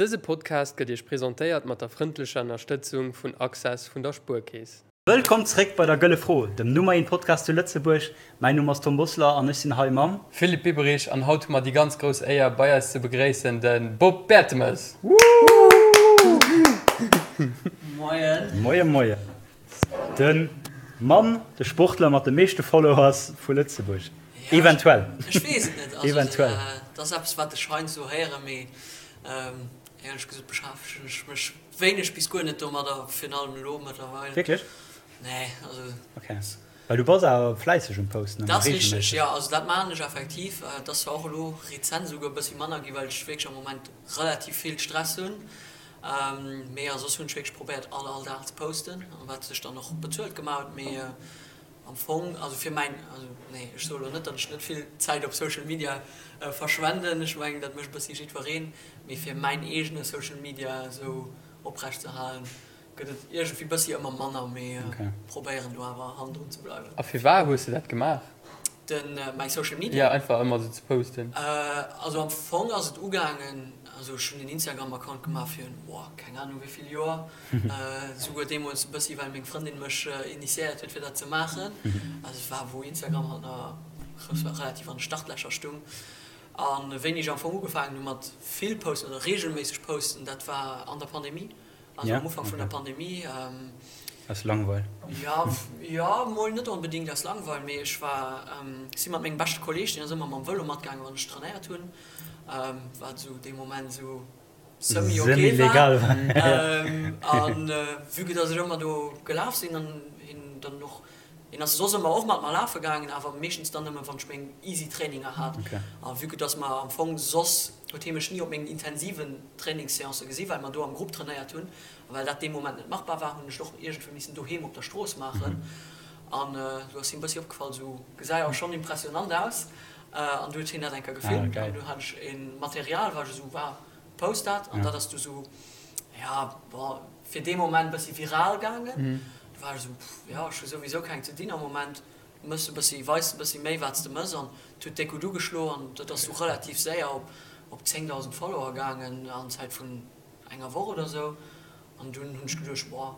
Dëse Podcast gëtt Iech presentéiert mat der frëndlecher Ënnerstëtzung vun Access vun der Spuerkeess. Wëllkomm zréck bei der Gëlle Fro, dem Nummer een Podcast zu Lëtzebuerg. Mäin Numm ass Tom Bosler an ech sinn hei mam. Philippe Biberich an haut hu mer déi ganz grouss Éier bei eis ze begréissen de Bob Bertemes. Moien. Moie moien. De Mann, de Sportler mat de meeschte Followers vu Lëtzebuerg. Eventuell. Ech weess et net. Also, Eventuell. Dat ass eppes, wat ech heiansdo héieren, mee éierlech gesot beschäftegen ech mech wéineg bis guer net domadder, virun allem elo mëttlerweil. Wierklech? Nee, also. Okay. Well du bass awer fläisseg um Posten, Dat ass richteg, jo. Also dat maachen ech effektiv. Et ass zwar och elo rezent esouguer e bëssi manner ginn, well ech wierklech am Moment relativ vill Stress hunn. Mee a soss hunn ech wierklech probéiert all all Dag ze posten, wat sech dann och bezuelt gemaach huet. Mee am Fong, also fir mäin, also nee, ech soe lo net, datt ech net vill Zäit op Social Media verschwenden, ech mengen dat mécht e bëssi jiddwereen, mee fir mäin eegene Social Media esou oprecht ze halen, gëtt et iergendwéi bëssi ëmmer manner, mee probéieren do awer hannendrun ze bleiwen. A firwat hues de dat gemaach? Den, mäi Social Media? Jo, einfach ëmmer esou ze posten. Also am Fong ass et ugaangen, also ech hunn den Instagram Account gemaach fir, boah, keng Ahnung wéi vill Joer, souguer deemools e bëssi well meng Frëndin mech initiéiert huet fir dat ze maachen. Also et war wou Instagram halt nach relativ an de Startlächer stung. A wéini ech am Fong ugefaangen hu mat vill posten oder reegelméisseg posten, dat war an der Pandemie. Also am Ufank vun der Pandemie. Aus Langweil? Jo, jo, mol net onbedéngt aus Langweil, mee ech war, ech si mat mengem beschte Kolleeg, deen ass ëmmer mam Vëlo matgaangen, wann ech trainéiert hunn, wat esou dee Moment esou semi ok war. An vue que dass ech ëmmer do gelaf sinn an hien dann och, hien ass soss ëmmer och mat mer lafe gaangen, awer meeschtens dann nëmme wann ech meng easy Traininger hat. A vue que dass mer am Fong soss huet hie mech ni op mengen intensiven Trainingsseancë gesi well mer do am Grupp trainéiert hunn a well dat dee Moment net machbar war, hunn ech et och iergendwéi missen doheem op der Strooss maachen an do ass him bëssi opgefall, sou gesäi awer schonn impressionant aus an du huet hien dat eng Kéier gefilmt an du hat ech e Material war ech esou wow, post dat an dat ass du sou ja bon fir dee Moment bëssi viral gaangen. Du war ech esou pff jo ech hu souwisou keng ze dinn am Moment, mëss e bëssi, weis e bëssi méi wat s de mëss an et huet déck gutt ugeschlo an dat ass du relativ séier op op 10.000 Follower gaangen an Zäit vun enger Woch oder sou an dunn hunn ech geduecht boah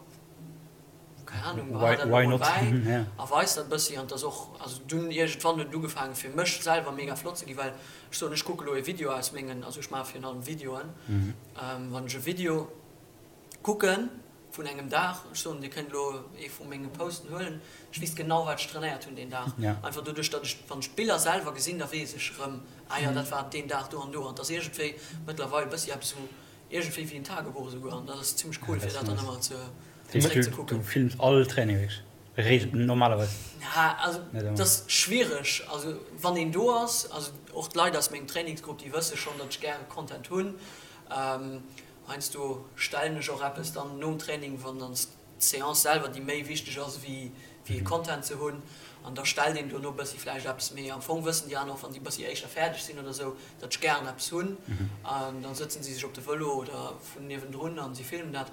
keng Ahnung behal dat elo mol bäi a weis dat e bëssi an et ass och also dunn iergendwann huet et ugefaangen fir mech selwer mega flott ze ginn well ech soen ech kucke lo e Video aus mengen also ech maache virun allem Videoen wann ech e Video kucken vun engem Dag, ech soen dir kënnt elo ee vu menge Posten huelen, ech weess genau wat ech trainéiert hunn deen Dag, einfach doduerch datt ech, wann ech d'Biller selwer gesinn, da weess ech erëm, ah jo dat war deen Dag do an do an et ass iergendwéi mëttlerweil e bëssi eppes wou iergendwéi wéi en Tagebuch esouguer an dat ass zimmlech cool fir dat dann ëmmer ze zeréck ze kucken. Du films all Training wierklech, normalerweis? Ja, also dat ass schwiereg, also wann een do ass, also och d'Leit aus mengem Trainingsgrupp déi wësse schonn, datt ech gäre Content hunn, Heiansdo stellen ech och eppes dann nom Training, wann dann d'Seance selwer déi méi wichteg ass wéi e Content ze hunn, an da stellt een dono bëssi vläicht eppes. Mee am Fong wëssen déi aner och, wann déi bëssi éischter fäerdeg sinn oder sou, datt ech gären eppes hunn. An dann sëtzen si sech op de Vëlo oder vun niewendrun an si filmen dat.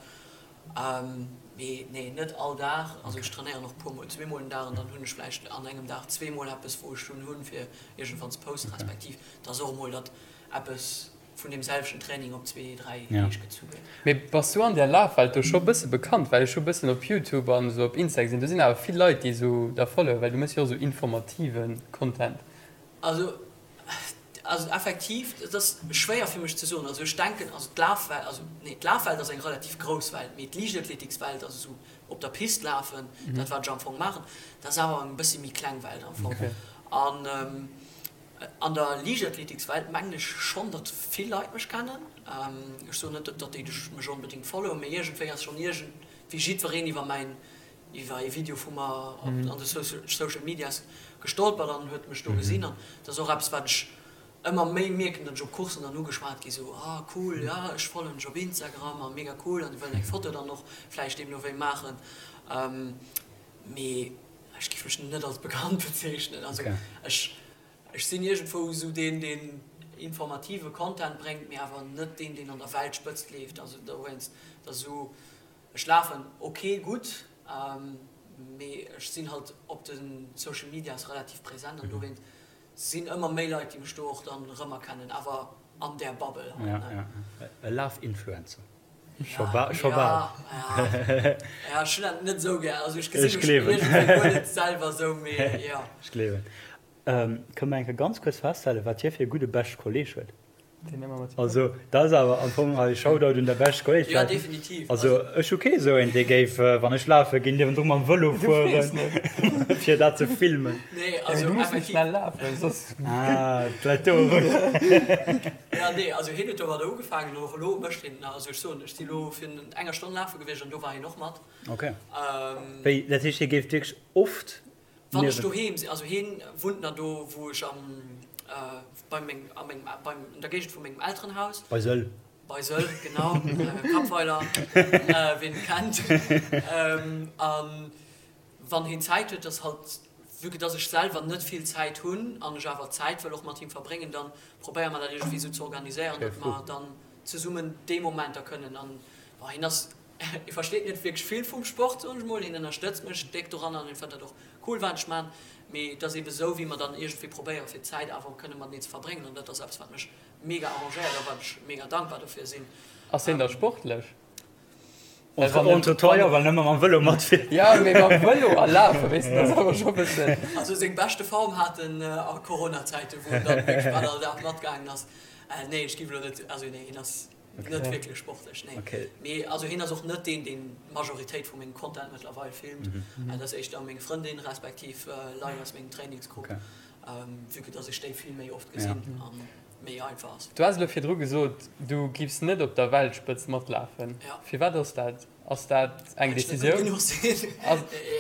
Mee nee, net all Dag. Also ech trainéieren och puer mol, zweemol den Dag an dann hunn ech vläicht an engem Dag zweemol eppes wou ech dunn hunn fir iergendwann ze posten, respektiv et ass och emol datt eppes vun deem selwechten Training op zwee, dräi Deeg gezu gëtt. Mee bass du an där Lafwelt do scho bësse bekannt? Well ech hu bëssen op Youtube an esou op Insta gesinn, do sinn awer vill Leit déi esou der followen, well du méchs jo och esou informative Content. Also, also effektiv, et ass schwéier fir mech ze soen. Also ech denken, also d'Lafwelt, also nee, d'Lafwelt ass eng relativ grouss Welt, mee d'Liichtathletikswelt, also esou op der Pist lafen, dat wat ech am Fong maachen, dat ass awer eng bëssi méi kleng Welt am Fong. An An der Liichtathletikswelt mengen ech schonn, datt vill Leit mech kennen. Ech soen net, datt déi mech onbedéngt followen, mee iergendwéi ass schonn iergendwéi jiddwereen iwwer mäin, iwwer ee Video vu mer an de Social Medias gestolpert an huet mech do gesinn. An dat ass och eppes, wat ech ëmmer méi mierken, datt ech op Courssen dann ugeschwat gi sou, ah cool, jo ech followen dech op Instagram a mega cool an déi wëllen eng Foto dann och vläicht deemno wéi maachen. Mee ech géif mech net als bekannt bezeechnen. Also ech, ech sinn iergendwou esou deen, deen informative Content bréngt, mee awer net deen, deen an der Weltspëtzt leeft. Also dowéinst, dat ass esou, ech lafen ok gutt, mee ech sinn halt op de Social Medias relativ present an dowéinst sinn ëmmer méi Leit, déi mech do och dann erëmerkennen. Awer. an där Bubble hei. Ja, ja. E Laf-Influencer. Scho bal. Scho bal. Ja, ech hunn dat net esou gär. Also ech gesi mech iergendwéi guer net selwer esou, mee jo. Ech gleewen. Kënne mer eng Kéier ganz kuerz festhalen, wat hie fir e gudde beschte Kolleeg huet? Also dat ass awer am Fong hei Shoutout un der beschte Kolleeg. Jo, definitiv. Also ech hu kee esou een, dee géif, wann ech lafe ginn, niewendru mam Vëlo fueren, fir dat ze filmen. Nee, also Du muss net schnell lafen, soss. Ah, d'läit do erëm. Ja, nee, also hien huet domadder ugefaangen an och elo mécht hien et nach. Also ech soen, ech si elo virun enger Stonn lafe gewiescht an do war hien och mat. Ok. Wéi, dat heescht, hie géif wierklech oft Wann ech doheem sinn, also hien wunnt nach do wou ech am bei meng a mengem beim an der Géigend vu mengem Elterenhaus. Bei Sëll. Bei Sëll, genau, Kappweiler, ween et kennt. An wann hien Zäit huet, ass halt, vue que dass ech selwer net vill Zäit hunn an ech awer Zäit wëll och mat him verbréngen, dann probéiere mer dat iergendwéi esou ze organiséieren, datt mer dann zesummen déi Momenter kënnen an bon, hien ass Hie versteet net wierklech vill vum Sport, soen ech mol. Hien ënnerstëtzt mech déck doranner an hien fënnt dat och cool, wat ech man. Mee et ass ebe sou, wéi mer dann iergendwéi probéieren, fir d'Zäit awer kënne mateneen ze verbréngen. An dat ass eppes, wat mech mega arrangéiert a wat ech mega dankbar dofir sinn. Ass hien da sportlech? Entre toi, jo, well en ëmmer mam Vëlo matfiert. Jo, mee mam Vëlo a lafen, weess de, dat ass awer scho bëssen. Also seng beschte Form hat en a Corona-Zäiten, wou en dann wierklech bal all Dag matgaangen ass. Nee, ech géif elo net, also nee, hien ass. Net wierklech sportlech, nee. Okay. Mee also hien ass och net deen, deen d'Majoritéit vu mengem Content mëttlerweil filmt. Dat ass éischter meng Frëndin respektiv Leit aus mengem Trainingsgrupp, vue que dass ech déi vill méi oft gesinn a méi einfach ass. Du has elo virdru gesot, du giffs net op der Weltspëtzt matlafen. Firwat ass dat? Ass dat eng Decisioun? Well ech net gutt genuch sinn.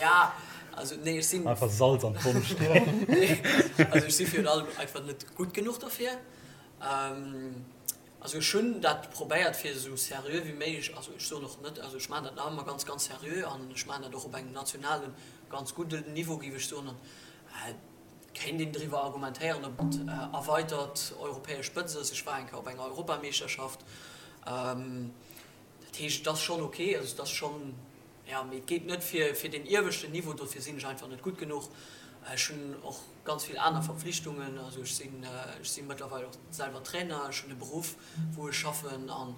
Ja, also nee, ech sinn. Einfach Salz an d'Wonn streeën. Nee, also ech si virun allem einfach net gutt genuch derfir. Also ech hunn dat probéiert fir esou seriö wéi méiglech, also ech soen och net, also ech maachen dat nach ëmmer ganz, ganz seriö an ech maachen dat och op engem nationalen, ganz gudden Niveau géif ech soen. An et kéint een driwwer argumentéieren, ob et erweitert europäesch Spëtzt ass. Ech war eng Kéier op enger Europameeschterschaft. Dat heescht, et ass schonn ok, also et ass schonn, jo, mee et geet net fir fir deen ieweschten Niveau, dofir sinn ech einfach net gutt genuch. Ech hunn och ganz vill aner Verpflichtungen, also ech sinn, ech si mëttlerweil och selwer Trainer, ech hunn e Beruff wou ech schaffen an,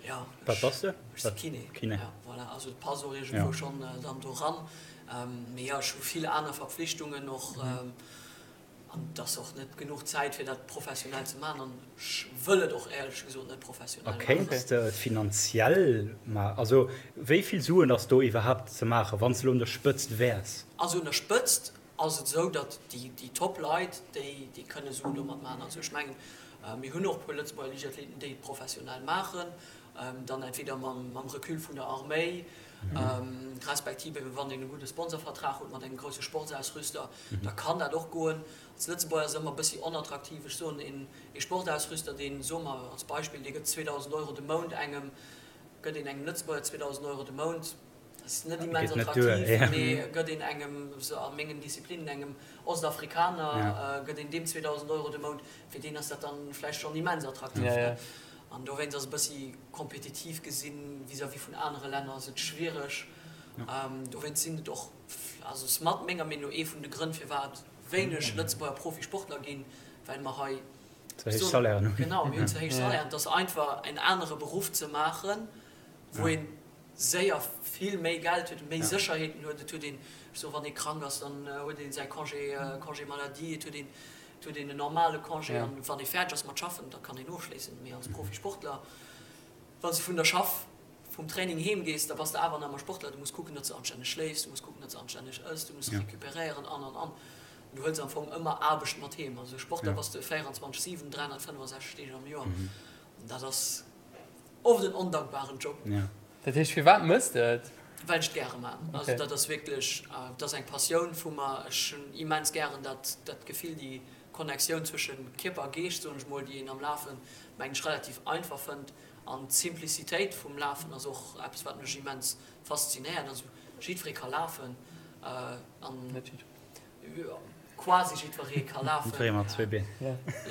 jo, Wat bass de? Ech si Kiné. Kiné. Jo, voilà, also et passt och iergendwou schonn dann do ran. Mee jo, ech hu vill aner Verpflichtungen och. An et ass och net genuch Zäit, fir dat professionell ze maachen. An ech wëll et och éierlech gesot net professionell maachen. A kéints de et finanziell maachen? Also wéi vill Suen ass do iwwerhaapt ze maachen, wann s de elo un der Spëtzt wäers? Also un der Spëtzt ass et esou, datt déi Top-Leit, déi kënne Suen domat maachen. Also ech mengen, mir hunn och e puer Lëtzebuerger Liichtathleten, déi et professionell maachen, dann entweder mam Recul vun der Arméi, respektiv eben wann een e gudde Sponsorvertrag huet mat engem grousse Sportsausrüster, da kann dat och goen. Als Lëtzebuerger ass et ëmmer e bëssi onattraktiv. Ech soen, een ee Sportausrüster, deen, soe mer als Beispill, dee gëtt 2.000 Euro de Mount engem, gëtt een engem Lëtzebuerger 2.000 Euro de Mount, dat ass net immens attraktiv, mee gëtt een engem, a mengen Disziplinen, engem Ostafrikaner, gëtt een deem 2.000 Euro de Mount, fir deen ass dat dann vläicht schonn immens attraktiv. An dowéinst ass e bëssi kompetitiv gesinn vis-à-vis vun anere Länner ass et schwiereg. Dowéinst sinn et och, also ass mat menger Meenung no ee vun de Grënn firwat wéineg Lëtzebuerger Profisportler ginn, well mer hei Ze héich Salairen hunn. Genau, mir hunn ze héich Salairen. Et ass einfach en anere Beruff ze maachen, wou ee séier vill méi Geld huet, méi Sécherheeten huet. Et huet een, ech soen, wann ee krank ass, dann huet ee säi Congé, Congé maladie, et huet een, et huet een en normale Congé an wann ee fäerdeg ass mat schaffen, da kann een ofschléissen. Mee als Profisportler, wann s de vun der Schaff, vum Training heem gees, da bass de awer nach ëmmer Sportler. Du muss kucken, datt s de anstänneg schléifs, du muss kucken, datt s de anstänneg ëss, du muss recuperéieren an, an, an. Du huels am Fong ëmmer Aarbecht mat heem. Also Sportler bass de 24, 7, 365 Deeg am Joer. Dat ass oft en ondankbaren Job. Dat heescht, firwat mëss de et? Well ech et gäre man. Also dat ass wierklech, dat ass eng Passioun vu mer. Ech hunn immens gären dat, dat Gefill, déi Connectioun zwësche Kierper a Geescht, soen ech mol, déi een am Lafen, mengen ech, relativ einfach fënnt. An d'Simplicitéit vum Lafen ass och eppes, wat mech immens faszinéiert. Also jiddweree ka lafen an. Net jiddweree. Quasi jiddweree ka lafen. Jiddweree mat zwee Been.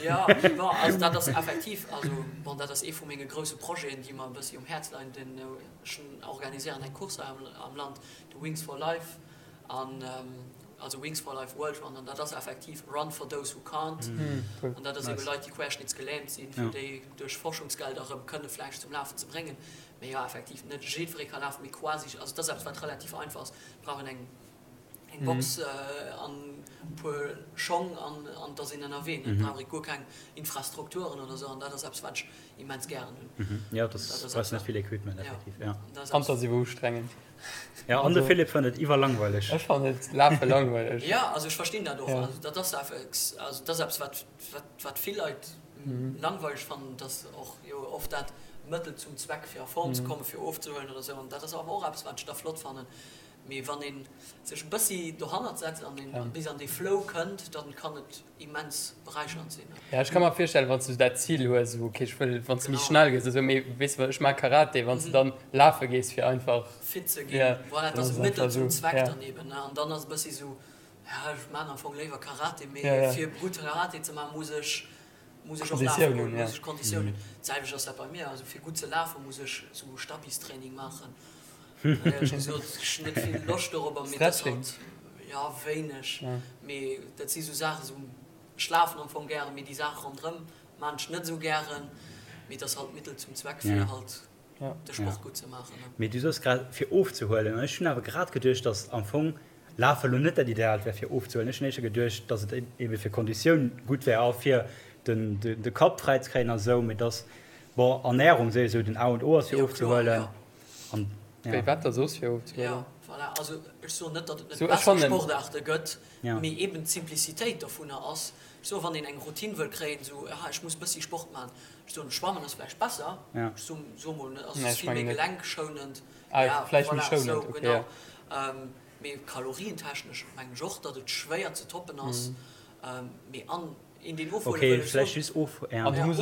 Jo, bon, also dat ass effektiv, also bon, dat ass ee vu menge grousse Projeten, déi mer e bëssi um Häerz leien. Den, ech organiséieren eng Course hei am Land, de Wings for Life, an. Also Wings for Life World Run, an dat ass effektiv Run for those who can't. An dat ass ebe Leit, déi querschnittsgelähmt sinn, fir déi duerch Forschungsgelder erëm kënne vläicht zum Lafen ze bréngen. Mee jo, effektiv, net jiddweree ka lafen, mee quasi, also et ass eppes, wat relativ einfach ass. Et brauch een eng eng Box an e puer Schong an an et ass een ënnerwee. Et brauch ee guer keng Infrastrukturen oder esou, an dat ass eppes, wat ech immens gären hunn. Jo, dat brauchs net vill Equipment, effektiv, jo. An et ass iwwer ustrengend. Ja, an de Philippe fënnt et iwwerlangweileg. Ech fannen et Lafe langweileg. Ja, also ech verstinn dat och. Also dat ass effex, also dat ass eppes wat, wat, wat vill Leit langweileg fannen, dass och jo oft dat Mëttel zum Zweck fir a Form ze kommen, fir ofzehuelen oder esou. An dat ass awer och eppes wat ech da flott fannen. Mee wann ee sech e bëssi dohannert setzt an een bis an dee Flow kënnt, dann kann et immens beräichernd sinn. Ja, ech ka mer virstellen, wann s du dat Zil hues, esou ok, ech wëll, wann s du méi schnell gëss, esou, mee weess de, ech maache Karate, wann s du dann lafe gees fir einfach fit ze ginn, voilà, et ass e Mëttel zum Zweck dann eben, ne, an dann ass e bëssi esou, ja, ech maachen am Fong léiwer Karate, mee fir gutt Karate ze maachen, muss ech, muss ech och lafe goen, muss ech Konditioun hunn. D'selwecht ass dat bei mir, also fir gutt ze lafen, muss ech esou Stabistraining maachen. Éierlech gesot, ech hunn net vill Loscht dorobber, mee dat ass halt, jo, wéineg. Mee dat si sou Saachen, sou, ech lafen am Fong gären, mee déi Saache ronderëm maan ech net esou gären. Mee et ass halt Mittel zum Zweck, fir halt de Sport gutt ze maachen. Mee du soos grad, fir ofzehuelen, an ech hunn awer grad geduecht, datt am Fong Lafe lo net dat Ideaalt wär fir ofzehuelen. Ech hunn éischter geduecht, datt et ebe fir Konditioun gutt wär a fir de Kapp fräi ze kréien a sou, mee datt, bon, Ernärung souwisou den A und O ass fir ofzehuelen. An, ja. Wéi wat da soss fir ofzehuelen? Jo, voilà. Also ech soen net, datt et net besser Sportaarte gëtt, mee eben d'Simplicitéit dovunner ass, ech soen, wann een eng Routine wëll kréien, esou, aha, ech muss bëssi Sport maachen, ech soen, Schwammen ass vläicht besser, ech soen, soe mol, ass vill méi gelenkschonend, ja, voilà, esou, genau. Mee kalorientechnesch mengen ech och, datt et schwéier ze toppen ass, mee an een deen ofhuele wëll, ech soen,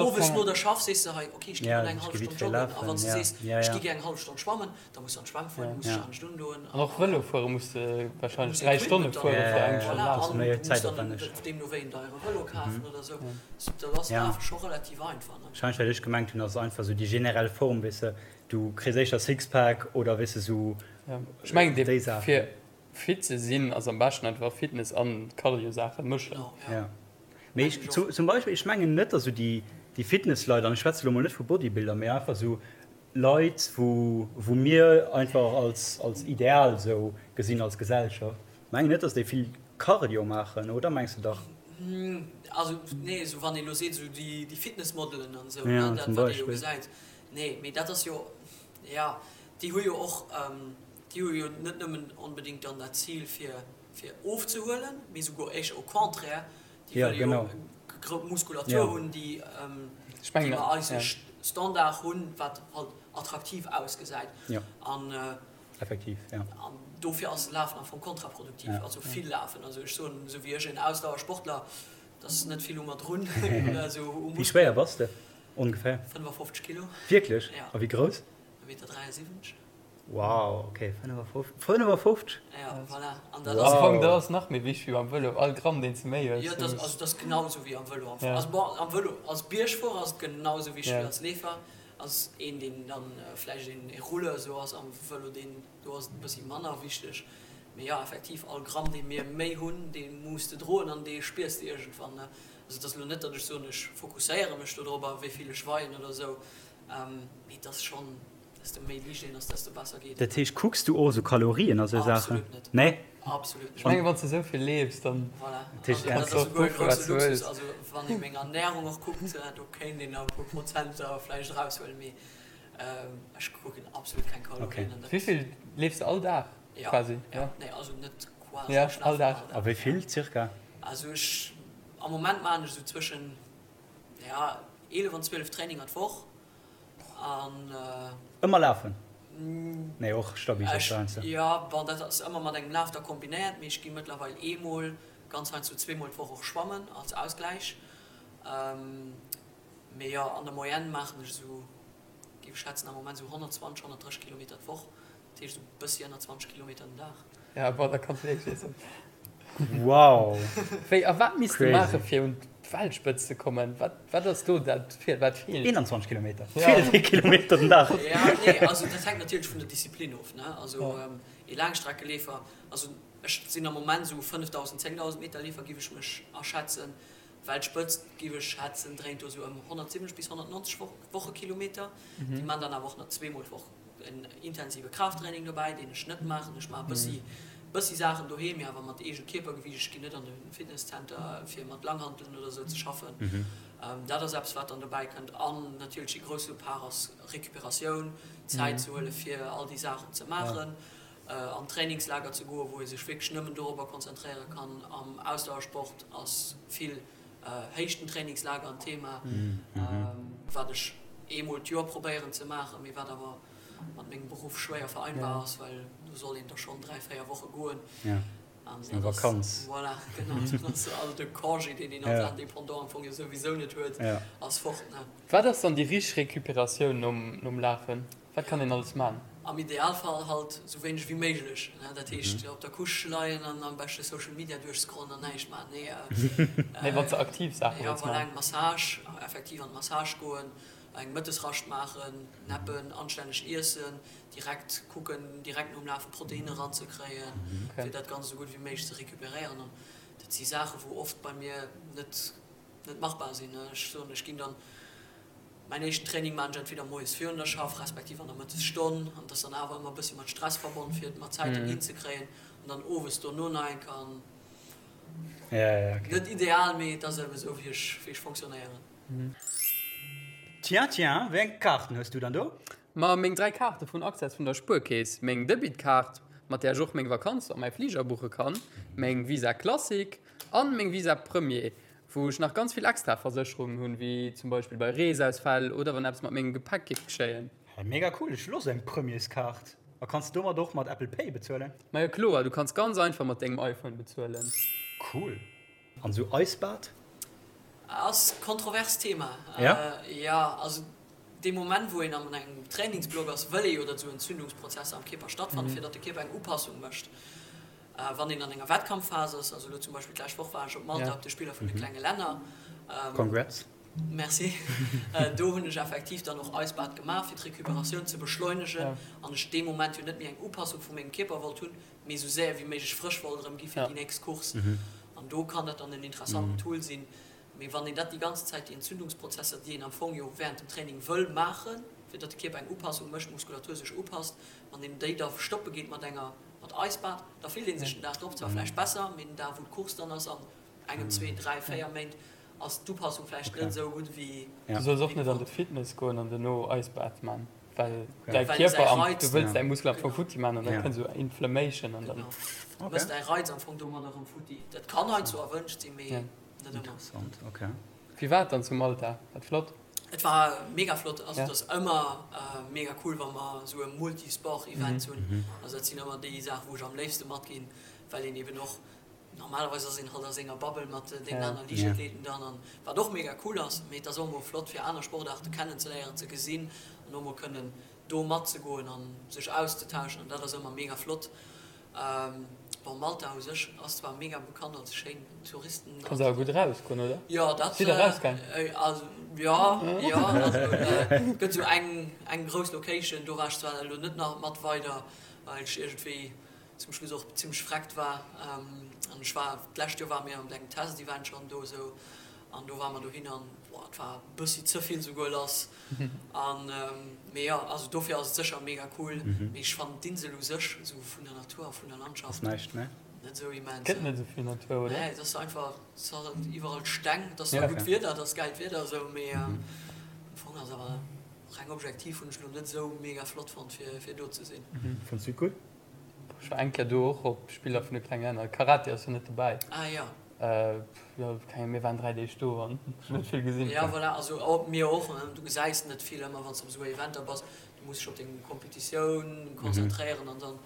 owes no der Schaff sees de hei, ok, ech gi mol eng hallef Stonn joggen, a wann s de sees, ech gi gär eng hallef Stonn schwammen, da muss de an d'Schwämm fueren, du muss dech anescht undoen. An och Vëlo fuere muss de warscheinlech 3 Stonne fuere fir eng Stonn lafen. An du muss dann deemno wéi en deiere Vëlo kafen oder esou. Dat ass Lafe scho relativ einfach, ne? Warscheinlech wat ech gemengt hunn ass einfach esou déi generell Form, weess de, du kriss éischter Sixpack oder weess de esou Ech mengen déi Saachen. Fir fit ze sinn ass am beschten einfach Fitness an Cardio Saachen mëschen. Jo mee ech zum Beispill ech mengen net dass esou déi déi Fitnessleit, an ech schwätze lo mol net vu Bodybuilder, mee einfach esou Leit wou wou mir einfach als als Ideal esou gesinn als Gesellschaft, mengen net dass déi vill Cardio maachen, oder mengs de dach? Also nee, esou wann ee lo seet esou déi déi Fitnessmodelen an esou, ne, dat wat ee jo gesäit, nee, mee dat ass jo, jo, déi hu jo och, déi hu jo net nëmmen onbedéngt dann dat Zil fir fir ofzehuelen, mee souguer éischter au contraire, déi wëlle jo grouss Muskulatur hunn, déi déi mer eise Standard hunn, wat halt attraktiv ausgesäit. An an dofir ass Lafen am Fong kontraproduktiv, also vill lafen. Also ech soen, esou wéi ech, en Ausdauersportler, dat ass net vill u mer drun. Wéi schwéier bass de ongeféier? 55 Kilo. Wierklech? A wéi grouss? E Meter 73. Wow, ok, 55? 55? Ja, voilà. An dat ass. Am Fong, dat ass nach méi wichteg wéi beim Vëlo, all Gramm, deen s de méi hues. Jo, dat ass, also dat ass genau esou wéi am Vëlo am Fong. Also bon, am Vëlo, als Biergfuerer ass et genau esou wichteg wéi als Leefer. Als een, deen dann vläicht een Rouleur esou ass am Vëlo, deen, do ass et e bëssi manner wichteg. Mee jo, effektiv, all Gramm, dee mir méi hunn, dee muss de droen an dee spiers de iergendwann, ne. Also et ass elo net, datt ech soen, ech fokusséiere mech dodrobber, wéi vill ech weien oder esou, mee et ass schonn. Desto méi liicht een ass, desto besser geet et. Dat heescht, kucks du och esou Kalorien a sou Saachen? Absolut net. Nee? Absolut net. Ech mengen, wann s de esou vill leefs, dann. Voilà. Dat heescht, dat ass esouguer e grousse Luxus. Also wann ee meng Ernärung och kuckt, do kéint een nach e puer Prozenter vläicht eraushuelen, mee ech kucken absolut keng Kalorien. Okay. Wéi vill leefs de all Dag quasi? Jo, nee, also net quasi, ech lafen all Dag. A wéi vill circa? Also ech, am Moment maachen ech esou zwëschen, ja, 11 an 12 Traininger d'Woch. Ëmmer lafen? Nee, och stabil heiansdo. Jo, bon, dat ass ëmmer mat engem Laf da kombinéiert, mee ech gi mëttlerweil eemol, ganz heiansdo zweemol d'Woch och schwammen als Ausgläich. Mee jo, an der Moyenne maachen ech esou, géif ech schätzen, am Moment esou 120, 130 Kilometer d'Woch. Dat heescht esou bëssi ënner 20 Kilometer den Dag. Ja, bon, da kanns du Fleesch iessen. Wow! Wéi, a wat misst de maache fir un d'Weltspëtzt ze kommen? Wat, wat ass do dat, wat feelt? 21 Kilometer. Feelt ee Kilometer den Dag. Ja, nee, also dat hänkt natierlech vun der Disziplin of, ne? Also ee Laangstreckeleefer, also. Ech sinn am Moment esou 5.000, 10.000 Meter Leefer giff ech mech aschätzen. Weltspëtzt giff ech schätzen dréint do esou ëm 170 bis 190 Wochekilometer. Déi man dann awer och nach zweemol d'Woch en intensive Kraafttraining dobäi, deen ech net maachen. Ech maache bëssi bëssi Saachen doheem, mee awer mat eegem Kierpergewiicht. Ech ginn net an de Fitnesscenter fir mat Langhanteln oder esou ze schaffen. Dat ass eppes wat dann dobäi kënnt. An natierlech dee grousse Part ass Recuperatioun, Zäit ze huele fir all déi Saachen ze maachen. An Trainingslager ze goen, wou ee sech wierklech nëmmen dorobber konzentréiere kann. Am Ausdauersport ass vill Héichtentrainingslager en Thema, wat ech eemol d'Joer probéieren ze maachen, mee wat awer mat mengem Beruff schwéier vereinbar ass, well do soll een da schonn 3, 4 Woche goen. An dat ass, voilà, genau, dann ass all de Congé, deen een als Indépendant am Fong jo souwisou net huet, ass fort, ne. Wat ass dann déi richteg Recuperatioun nom Lafen? Wat kann een alles man? Am Idealfall halt sou wéineg wéi méiglech, ne? Dat heescht op der Couche leien an am beschte Social Media duerchscrollen an näischt man. Nee, Nee, wann s de aktiv Saache jo, wëlls voilà, man. eng Massage, effektiv an d'Massage goen, eng Mëttesrascht maachen, neppen, anstänneg iessen, direkt kucken, direkt nom Lafe Proteinne ranzekréien, fir dat Ganzt esou gutt wéi méiglech ze recuperéieren. An dat si Saache wou oft bei mir net net machbar sinn. Ech soen, ech ginn dann Mäin éischten Training maan ech entweder moies virun der Schaff, respektiv an der Mëttesstonn, an et ass dann awer ëmmer e bëssi mat Stress verbonn fir et mat Zäiten hinzekréien, an dann owes dono nach eng Kéier. An net ideal, mee et ass eben esou wéi ech wéi ech fonctionnéieren. Tiens, tiens, wéi eng Kaarten hues du dann do? Ma meng 3 Kaarte vun Access vun der Spuerkeess, meng Debitkaart, mat där ech och meng Vakanz a mäi Fliger buche kann, meng Visa Classic an meng Visa Premier, Wou ech nach ganz vill extra Versécherungen hunn, wéi zum Beispill bei Reesausfäll oder wann eppes mat mengem Gepäck géif geschéien. Hey, mega cool, ech wëll och sou eng Premierskaart. A kanns de domat och mat Apple Pay bezuelen? Majo kloer, du kanns ganz einfach mat dengem iPhone bezuelen. Cool. An sou Eisbad? Ass kontrovers Thema. Ja? Jo, also dee Moment wou een an engem Trainingsblock ass, wëll ee jo datt esou Entzündungsprozesser am Kierper stattfannen, fir datt de Kierper eng Upassung mécht. Wann een an enger Wettkampfphas ass, also elo zum Beispill d'lescht Woch war ech op Malta op de Spiller vun de klenge Länner. Congrats. Merci. Do hunn ech effektiv dann och Eisbad gemaach, fir d'Recuperatioun ze beschleunegen an ech dee Moment jo net méi eng Upassung vu mengem Kierper wollt hunn, mee esou séier wéi méiglech frësch wollt erëm gi fir déi nächst Course. An do kann dat dann en interessanten Tool sinn. Mee wann een dat déi ganz Zäit, déi Entzündungsprozesser, déi een am Fong jo während dem Training wëll maachen, fir datt de Kierper eng Upassung mécht, d'Muskulatur sech upasst, wann een déi da stoppe geet mat enger Mat Eisbad, da fillt ee sech den Dag drop zwar vläicht besser, mee den Dag wou d'Course dann ass, an engem, zwee, dräi, véier Méint, ass d'Upassung vläicht net esou gutt wéi. Du solls och net an de Fitness goen an duerno Eisbad man, well däi Kierper am, du wëlls däi Muskel am Fong futti man an da kënnt esou Inflammation an dann. Genau, du mëss däi Reiz am Fong domadder erëm futti. Dat kann heiansdo erwënscht sinn, mee net ëmmer. Interessant, ok. Wéi war et dann zu Malta? War et flott? Et war mega flott. Also et ass ëmmer mega cool wa mer esou e Multisport Event hunn. Also dat sinn ëmmer déi Saachen wou ech am léifste matginn, well een eben och, normalerweis ass een halt a senger Bubble mat deenen aner Liichtathleten dann, an wat och mega cool ass, mee et ass och emol flott fir aner Sportaarte kennenzeléieren, ze gesinn an och mol kënnen do matzegoen an sech auszetauschen an dat ass ëmmer mega flott. Bon Malta u sech ass zwar mega bekannt als schéin Touristen. Kanns awer gutt erausgoen oder? Jo dat Sidd der rausgaang? Also jo jo also et gëtt esou eng eng grouss Location, do war ech zwar elo net nach mat weider well ech iergendwéi zum Schluss och zimmlech vreckt war an ech war d'lescht Joer ware mir an engem Testevent schonn do esou an do ware mer dohin an boah et war e bëssi ze vill souguer lass. An mee jo, also dofir ass et sécher mega cool, mee ech fannen d'Insel u sech esou vun der Natur a vun der Landschaft Ass näischt, ne? net esou immens. Gëtt net esou vill Natur, oder? Nee, et ass einfach, et ass halt iwwerall Steng, et ass zwar gutt Wieder, et ass gäilt Wieder esou, mee am Fong ass awer reng objektiv hunn ech lo net esou mega flott fonnt fir fir do ze sinn. Fënns du et gutt? Ech war eng Kéier do och op Spiller vun de klenge Länner. Karate ass jo net dobäi. Ah jo. Jo, keng, mir waren 3 Deeg do an ech hunn net vill gesinn. Jo, voilà, also mir och, du gesäis net vill ëmmer wann s de op esou Eventer bass. Du muss dech op deng Competitioun konzentréieren an dann,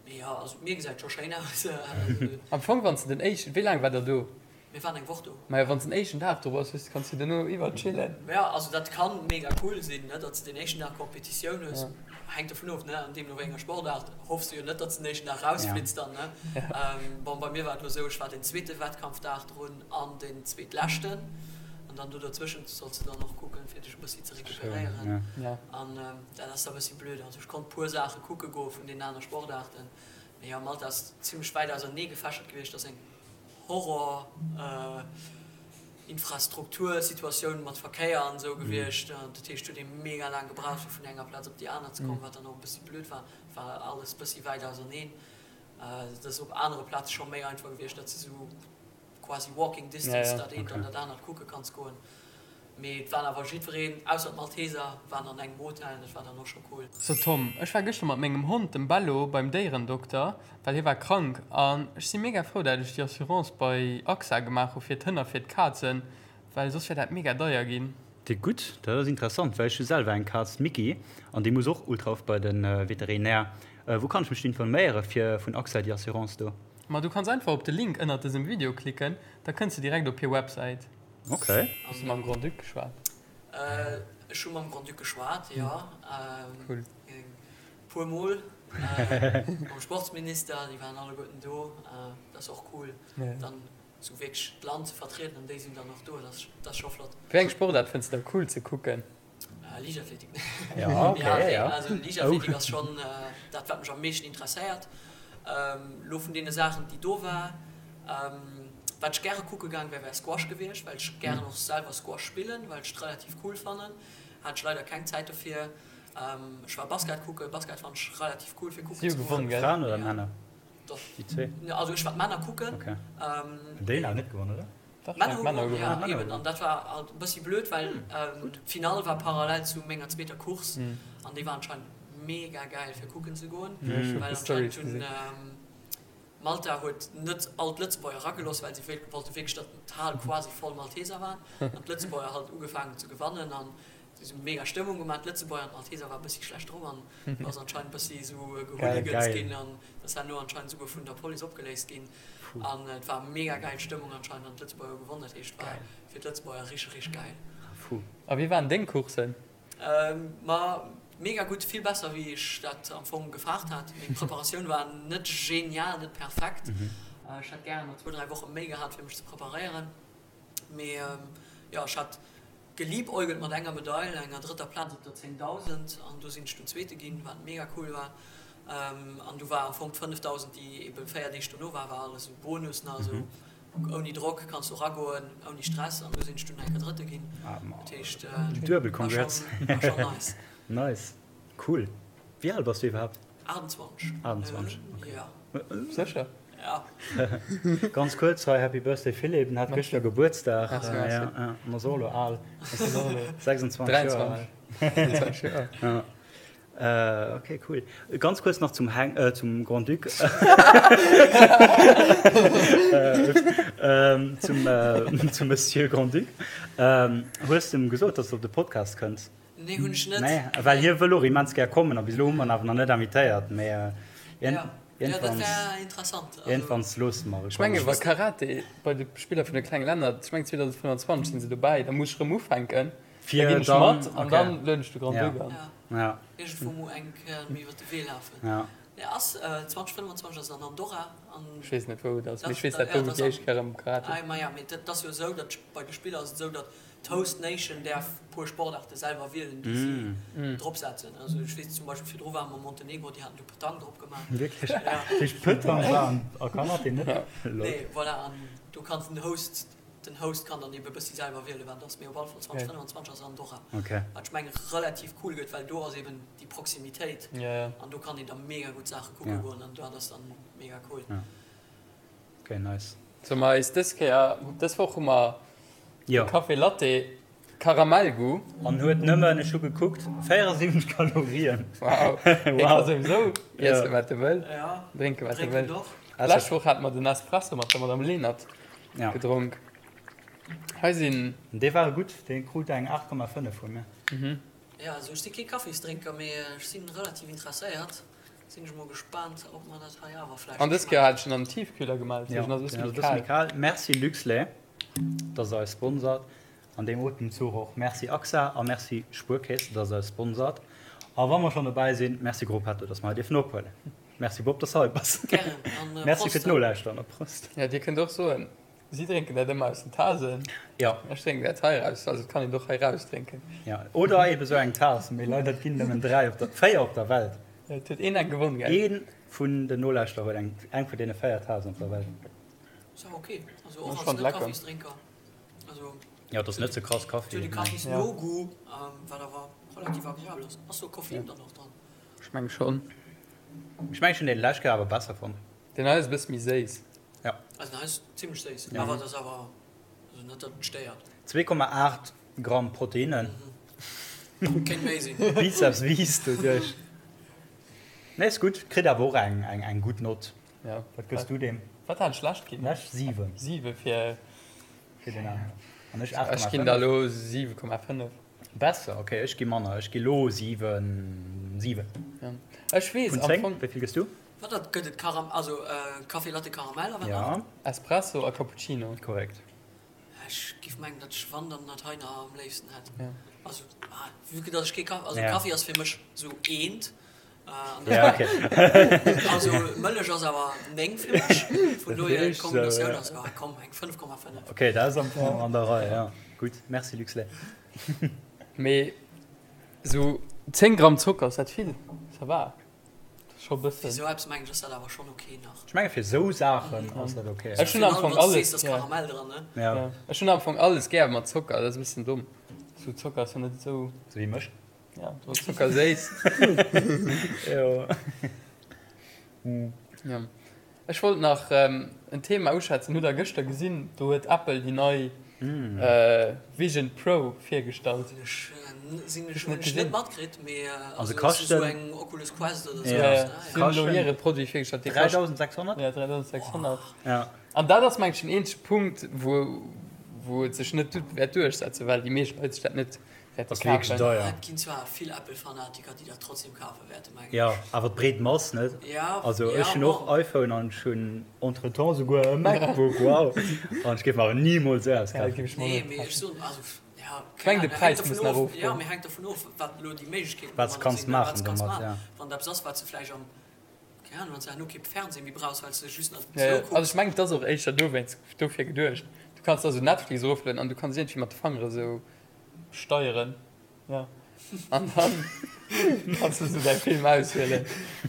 mee jo, also d'Mier gesäit scho schéin aus. Am Fong wann s de den éischten, wéi laang war der do? Mir waren eng Woch do. Majo, wann s den éischten Dag do bass, hues, kanns du duerno iwwer chillen. Jo, also dat kann mega cool sinn, ne, datt s de den éischten Dag Competitioun hues. Hänkt dovun of, ne, an deemno wéi enger Sportaart hoffs du jo net, datt s den éischten Dag rausflitts dann, ne. Bon, bei mir war et elo esou, ech war den zweete Wettkampfdag drun an den zweetleschten. An dann do derzwëschent solls de dann och kucken, fir dech e bëssi ze recuperéieren. An dat ass da e bëssi blöd. Also ech konnt puer Saache kucke goe vun deenen aner Sportaarten. Mee jo, Malta ass zimlech wäit ausernee gefächert gewiescht. Dat ass eng Horror Infrastruktursituatioun mat Verkéier an esou gewiescht. Dat heescht, huet ee mega laang gebraucht fir vun enger Plaz op déi aner ze kommen, wat dann och e bëssi blöd war. War alles bëssi wäit auserneen. Dat ass op anere Plaze scho méi einfach gewiescht, datt s de sou quasi walking distance dat eent an dat anert kucke kanns goen. Mee et waren awer jiddwereen, ausser d'Malteser, waren an engem Hotel an dat war dann och scho cool. So Tom, ech war gëschter mat mengem Hond, dem Bello, beim Déierendokter, well hie war krank an ech si mega frou dat ech déi Assurance bei AXA gemaach hu fir d'Hënn a fir d'Kazen, well soss wär dat mega deier ginn. Déi gutt, dat ass interessant, well ech hu selwer eng Kaz, d'Micky, an déi muss och ultra oft bei de Veterinär. Wou kann ech mech informéiere fir vun AXA déi Assurance do? Ma du kanns einfach op de Link ënnert dësem Video klicken, da kënns de direkt op hir Websäit. Ok. Hues de mam Grand-Duc geschwat? Ech hu mam Grand-Duc geschwat, jo. Cool. E puer Mol. Mam Sportsminister, déi waren alleguerten do. Dat ass och cool, dann esou wierklech d'Land ze vertrieden an déi sinn dann och do. Dat ass scho flott. Wéi eng Sportaart fënns de da cool ze kucken? Liichtathletik. Ja, okay, ja. Also Liichtathletik ass schonn dat, wat mech am meeschten interesséiert. Lo vun deene Saachen, déi do war, wat ech gäre kucke gaang wär, wär Squash gewiescht, well ech gären och selwer Squash spillen, well ech et relativ cool fannen. Hat ech leider keng Zäit dofir. Ech war Basket kucken. Basket fannen ech relativ cool fir kucken ze goen. Fraen oder Männer? Doch. Déi zwee? Also ech war d'Männer kucken. Okay. Déi hunn net gewonnen, oder? Dach, Männer hu gewonnen, ja, eben. An dat war halt e bëssi blöd, well d'Finall war parallel zu menger zweeter Course an déi war anscheinend mega gäil fir kucken ze goen, well anscheinend hunn Malta huet net all d'Lëtzebuerger eragelooss, well si wollte wierklech, datt d'Hal quasi voll Malteser war an d'Lëtzebuerger halt ugefaangen hunn ze gewannen an si hu mega Stëmmung gemaach. D'Lëtzebuerger an d'Malteser war e bëssi schlecht drop an do ass anscheinend e bëssi esou gehooligans ginn an dat ass herno anscheinend esouguer vun der Police opgeléist ginn. An et war mega geil Stëmmung anscheinend an d'Lëtzebuerger hu gewonnen, dat heescht war fir d'Lëtzebuerger richteg richteg geil. Fou. A wéi waren deng Coursen? Ma mega gutt, vill besser wéi ech dat am Fong gefaart hat. Meng Preparatioun war net genial, net perfekt. Ech hätt gären nach zwou, dräi Woche méi gehat fir mech ze preparéieren. Mee jo, ech hat geliebäugelt mat enger Medail, enger drëtter Plaz op der 10.000 an do sinn ech dunn Zweete ginn, wat mega cool war. An du war am Fong d'5.000, déi ebe 4 Deeg dono war, war alles esou Bonus nach, esou ouni Drock kanns du eragoen, ouni Stress an du sinn ech dunn eng Kéier Drëtte ginn. Dat heescht, Duebel congrats. war schonn nice. Nice, cool. Wéi al bass du iwwerhaapt? 28. 28, okay. Ja. Sécher? Ja. Ganz kuerz hei, Happy Birthday Philippe, en hat gëschter Gebuertsdag. Merci, merci. Ja, ja, en ass och elo al. 26 Joer al. 23 Joer. Ja. Okay, cool. Ganz kuerz nach zum Heng, äh, zum Grand-Duc. Äh, zum, äh, zum Monsieur Grand-Duc. Ähm, hues du em gesot, dass du op de Podcast kënns? Nee, hunn ech net. Nee, well hie wëll och immens gär kommen a bis elo hu mer en awer nach net invitéiert, mee Ja, ja, dat wär interessant. Also, iergendwanns loosse mer e Ech menge wa Karate bei de Spiller vun de klenge Länner, ech meng 2025 sinn se dobäi, da muss ech erëm ufänken, da Fir ginn ech dann, mat an okay. dann lueden ech de Grand-Duc Ja. an. Ja. Ja. Iergendwou mol eng Kéier méi iwwer de Wee lafen. Ja. Nee, ass 2025 ass an Andorra an. Ech weess net wou et ass, mee Dat, ech weess dat, dat ja, do dat déi ass éischt Kéier am Karate. Ah, maja, mee dat ass jo esou, datt bei de Spiller ass et esou, datt D'Host Nation däerf puer Sportaarte selwer wielen, déi si drop setzen. Also ech weess zum Beispill virdru ware mer Montenegro, déi haten du Petanque drop gemaach. Wierklech? Dat heescht Petanque war an a Karate net? Lol. Nee, voilà, an do kann den Host, den Host kann dann ebe bëssi selwer wielen, wat et ass. Mee op alle Fall 2025 ass Andorra, wat ech mengen relativ cool gëtt, well do ass eben déi Proximitéit an do kann een da mega gutt Saache kucke goen an dat ass dann mega cool. Ok, nice. Solle mer eis dës Kéier, dës Woch hu mer de Café Latte Karamellgoût. An huet nëmmen, ech hu gekuckt, 74 Kalorien. Wow, hie ka souwisou iessen wat e wëll, drénken wat e wëll. D'lescht Woch hate mer den Espresso mat der Madame Lenert gedronk. Hei sinn. Dee war gutt, dee krut eng 8,5 vu mir. Jo, also ech si kee Kaffisdrénker, mee ech si relativ interesséiert. Sinn ech mol gespaant ob mer dat hei awer vläicht An dës Kéier hat ech en an den Tiefkühler gemaach, Ja, deswegen ass e bësse den ass méi e bësse méi kal. kal. Merci Luxlait, dass der eis sponsert. An deem Otemzuch och Merci AXA a Merci Spuerkeess, dass der eis sponsert. A wa mer schonn dobäi sinn, Merci Gruppetto, dass mer hei dierfen ophuelen. Merci Bob, dass de hei bass. Gären an Merci fir Prost. d'Nolauschteren a Prost. Ja, dir kënnt och soen, si drénken dat ëmmer aus den Tasen. Ja. Ech drénken dat hei raus, also et kann een och hei raus drénken. Ja, oder ebe sou eng Taass, mee leider ginn nëmmen 3 op der, 4 op der Welt. Et huet een eng gewonn, gell? Ee. vun den Nolauschterer huet eng, eng vun deene 4 Taassen op der Welt. Ass awer ok, also och als Net-Kaffisdrénker. Also Jo, et ass net ze krass Kaffi. Et huet e Kaffis-No-Goût, wat awer relativ agreabel ass. Ass do Koffein dann och dran? Ech meng schonn. Ech mengen ech hunn dee lescht Kéier awer besser fonnt. Deen hei ass e bësse méi séiss. Ja. Also den hei ass zimmlech séiss, awer et ass awer also net datt et stéiert. 2,8 Gramm Proteinnen. Kéint méi sinn. Bizeps wiisst doduerch. Nee, ass gutt. Kritt awer och eng eng gutt Nott. Ja. Wat gëss du deem? Wat hat ech lescht ginn? Lescht 7. 7 fir. Fir den aneren. An ech 8,5. Ech ginn der elo 7,5. Besser, ok, ech gi manner. Ech gi lo 7, 7. Ja. Ech weess Vun am 10, Fong. wéi vill gëss du? Wat dat gëtt et Karam also Café Latte Karamell a wat nach? Ja. Espresso a Cappuccino. Korrekt. Ech giff mengen datt ech wann dann dat hei nach am léifsten hätt. Ja. Also ah vue que datt ech kee Kaffi, also Ja. Kaffi ass fir mech sou eent an Ja, ok. also Mëllech ass awer 9 fir mech, vun dohier Natierlech, sou, d'Kombinatioun ja. ass ah komm eng 5,5. Ok, dat ass am Fong an der Rei, ja. Gutt, merci Luxlait. Mee sou 10 Gramm Zocker, ass dat vill? Ça va. Scho bëssen. Fir sou eppes mengen ech ass dat awer schonn ok nach. Ech menge fir sou Saachen ass dat ok. Ech hunn am Fong alles gär. Karamell dran, ne? Ja. Ja. Ech hunn am Fong alles gär mat Zocker, dat ass e bëssen domm. Sou Zocker ass jo net esou. Sou wéi mech. Ja, do ass Zocker séiss. Jo. Ja. Ech wollt nach en Thema uschwätzen, hutt der gëschter gesinn, do huet Apple déi nei Vision Pro virgestallt. Hunn ech net matkritt, mee also kaschten esou eng Oculus Quest oder sou. Ja, si hunn elo hire Produit virgestallt, dee kascht 3600? Ja, 3600. Ja. An dat ass mengen ech den eenzege Punkt, wou wou et sech net wäert duerchsetzen, well déi meescht Leit sech dat net Wäert ass wierklech deier. Et ginn zwar vill Apple-Fanatiker, déi dat trotzdem kafe wäerten, mengen ech. Jo, awer d'breet Mass, net? Ja, Also ja, ech hunn och bon. iPhone an ech hunn entretemps souguer e MacBook, wow! An ech géif mer awer nimools esou eppes Ja, kafen. géif ech mer och Nee, net mee ech kafen. soen, also, ja, Ech keng mengen de Ahnung, hänkt Präis dervun muss nach of, ja, erofgoen. mee hänkt dervun of, wat elo déi Méiglechkeeten Wat s domadder kanns sinn, wat maachen s kanns domat, maachen. ja. Wann et eppes ass, wat s de vläicht am, keng Ahnung, wann s de herno kee Fernseh méi brauchs, well s de just nach Ja, esou ja. Also kucks. ech mengen et ass och éischter dowéinst, dofir geduecht. Du kanns da sou Netflix eroflueden an du kanns iergendwéi mat de Fangere sou Steieren, ja. An dann kanns du sou däi Film auswielen.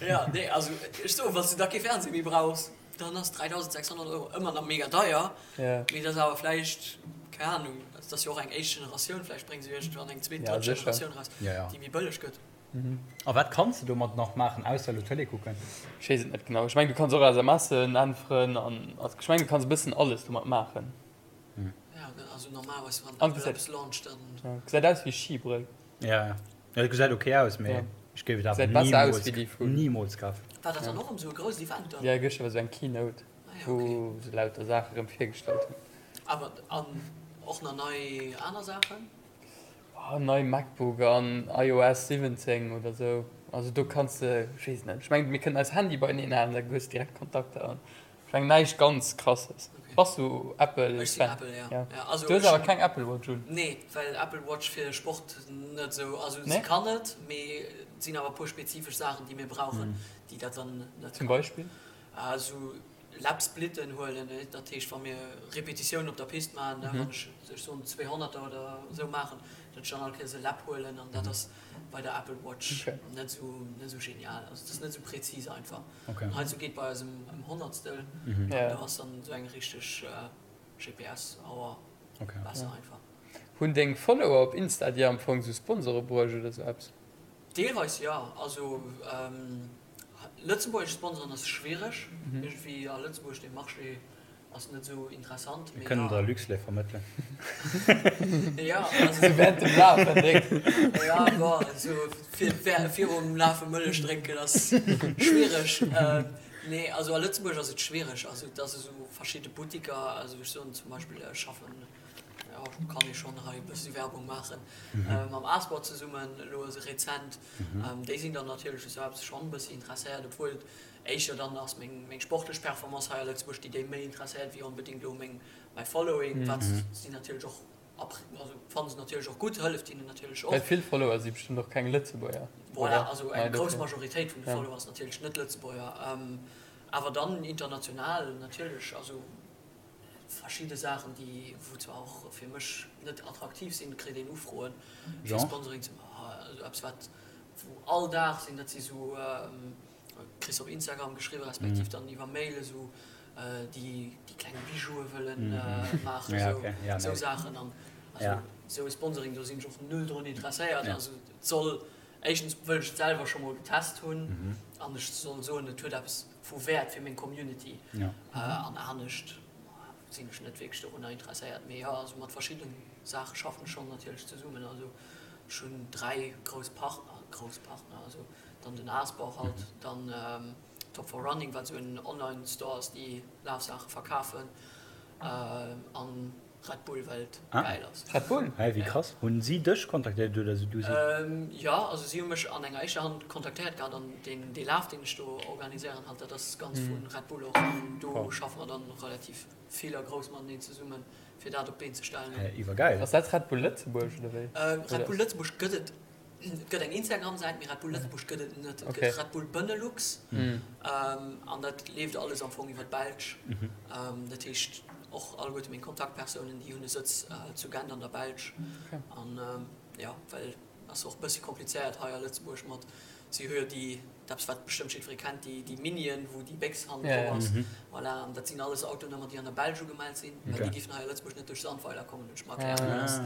Ja, nee, also ech soen, wann s du da kee Fernseh méi brauchs, dann ass 3.600 Euro ëmmer nach mega deier, Ja. mee dat ass awer vläicht, keng Ahnung, dat ass jo och eng éischt Generatioun, vläicht brénge se jo iergendwann eng zweet, Ja, drëtt sécher. Generatioun eraus, Ja, ja. déi méi bëlleg gëtt. A wat kanns de domat nach maachen, ausser elo Tëlee kucken? Ech weess et net genau. Ech mengen, du kanns och SMSen äntweren an also ech mengen, du kanns e bëssen alles domat maachen. Ja, also normalerweis wann An Apple gesäit eppes launcht, dann. Ja, gesäit aus wéi Skibrëll. Ja, ja, et gesäit ok aus, mee Ja. ech géif et awer Gesäit besser aus nimools wéi déi vun. nimools kafen. War dat dann och erëm esou e grousst Event dann? Ja, gëschter war esou eng Keynote, Ah ja, okay. wou se lauter Saache rëm virgestallt hunn. Awer an och nach nei aner Saachen? Oh, nei MacBook an iOS 17 oder esou. Also do kanns de, ech weess et net, ech mengen mir kënnen eis Handye beieneen halen, da hues de direkt Kontakter an ech mengen näischt ganz krasses. Okay. Bass du Apple Ech sinn Fan? Apple, ja. Ja. Ja, also Du hues ech awer hunn. keng Apple Watch un? Nee, well Apple Watch fir Sport net esou, also se Nee? kann et, mee et sinn awer e puer spezifesch Saachen, déi mir brauchen, déi dat dann net Zum kann. Beispill? Esou Lap-Splitten huelen, dat heescht wa mir Repetitiounen op der Pist maachen, wann ech, ech soen zweehonnerter oder esou maachen, datt ech dann all Kéiers e Lap huelen an dat ass bei der Apple Watch Okay. net esou, net esou genial, also et ass net esou präzis einfach. Okay. An heizou geet bei eis ëm ëm Honnertstel an Ja. do ass dann esou eng richteg GPS-Auer Okay. besser Ja. einfach. Hunn deng Follower op Insta dir am Fong sou Sponsore bruecht oder sou eppes? Deelweis jo, also lëtzebuergesch Sponsoren ass schwiereg, iergendwéi a Lëtzebuerg dee Marché ass net esou interessant. Mir kënnen der Luxlait vermëttelen. Jo, also Sou während dem Lafen drénken. Jo, bon, esou virum Lafe Mëllech drénken ass schwiereg. Nee, also a Lëtzebuerg ass et schwiereg, also et ass esou verschidde Buttiker, also ech soen zum Beispill ech schaffen, jo kann ee schonn hei e bëssi Werbung maachen, mam Asport zesummen elo rezent, déi sinn dann natierlech u sou eppes schonn e bëssi interesséiert, obwuel et éischter dann ass meng meng sportlech Performance hei a Lëtzebuerg, déi déi méi interesséiert wéi onbedéngt elo meng mäi Following, wat si natierlech och also fanne se natierlech och gutt, hëlleft hinnen natierlech och. Well vill Follower si bestëmmt och keng Lëtzebuerger, Voilà, oder? also eng grouss Majoritéit vun de Follower ass natierlech net Lëtzebuerger, awer dann international natierlech, also verschidde Saachen, déi wou zwar och fir mech net attraktiv sinn, kritt een Ufroen fir Genre? Sponsoring ze maachen, also eppes wat wou all Dag sinn, dat si sou. Kriss op Instagram geschriwwen, respektiv dann iwwer Mail esou, déi déi kleng Bijoue wëllen maachen, esou Saachen. An also esou e Sponsoring, do sinn ech och null drun interesséiert. Also et soll, éischtens wëll ech et selwer scho mol getest hunn an ech soll soen, et huet eppes vu Wäert fir meng Community. An anescht sinn ech net wierklech dorunner interesséiert. Mee jo, also mat verschiddene Saache schaffen ech schonn natierlech zesummen. Also ech hunn 3 grouss Partner, grouss Partner, also dann den Asbau halt, dann Top for Running, wat esou en Online Store ass, déi Lafsaache verkafen, an Red Bull, well et gäil ass. Red Bull? Hä, wéi krass. Hunn si dech kontaktéiert oder du si? Jo, also si hu mech an enger éischter Hand kontaktéiert gehat an deen dee Laf, deen ech do organiséieren halt, dat ass ganz vu Red Bull och an do schaffe mer dann relativ vill a grouss mateneen zesummen, fir dat op d'Been ze stellen. Hä, iwwergäil. Ass dat Red Bull Lëtzebuerg oder wéi? Red Bull Lëtzebuerg gëtt et Et gëtt eng Instagram-Säit, mee Red Bull Lëtzebuerg gëtt et net. Et gëtt Red Bull Benelux an dat leeft alles am Fong iwwer d'Belsch. Dat heescht och alleguerte meng Kontaktpersounen, déi hunn e Sëtz zu Gent an der Belsch. An jo, well ass och e bëssi komplizéiert hei a Lëtzebuerg mat, si hu jo déi, eppes wat bestëmmt jiddweree kennt, déi déi Minien, wou déi Béchs hannen drop ass. Voilà, an dat sinn alles Autonummer, déi an der Belsch ugemellt sinn, well déi géifen hei a Lëtzebuerg net duerch Sandweiler kommen, hunn ech mer erkläre gelooss.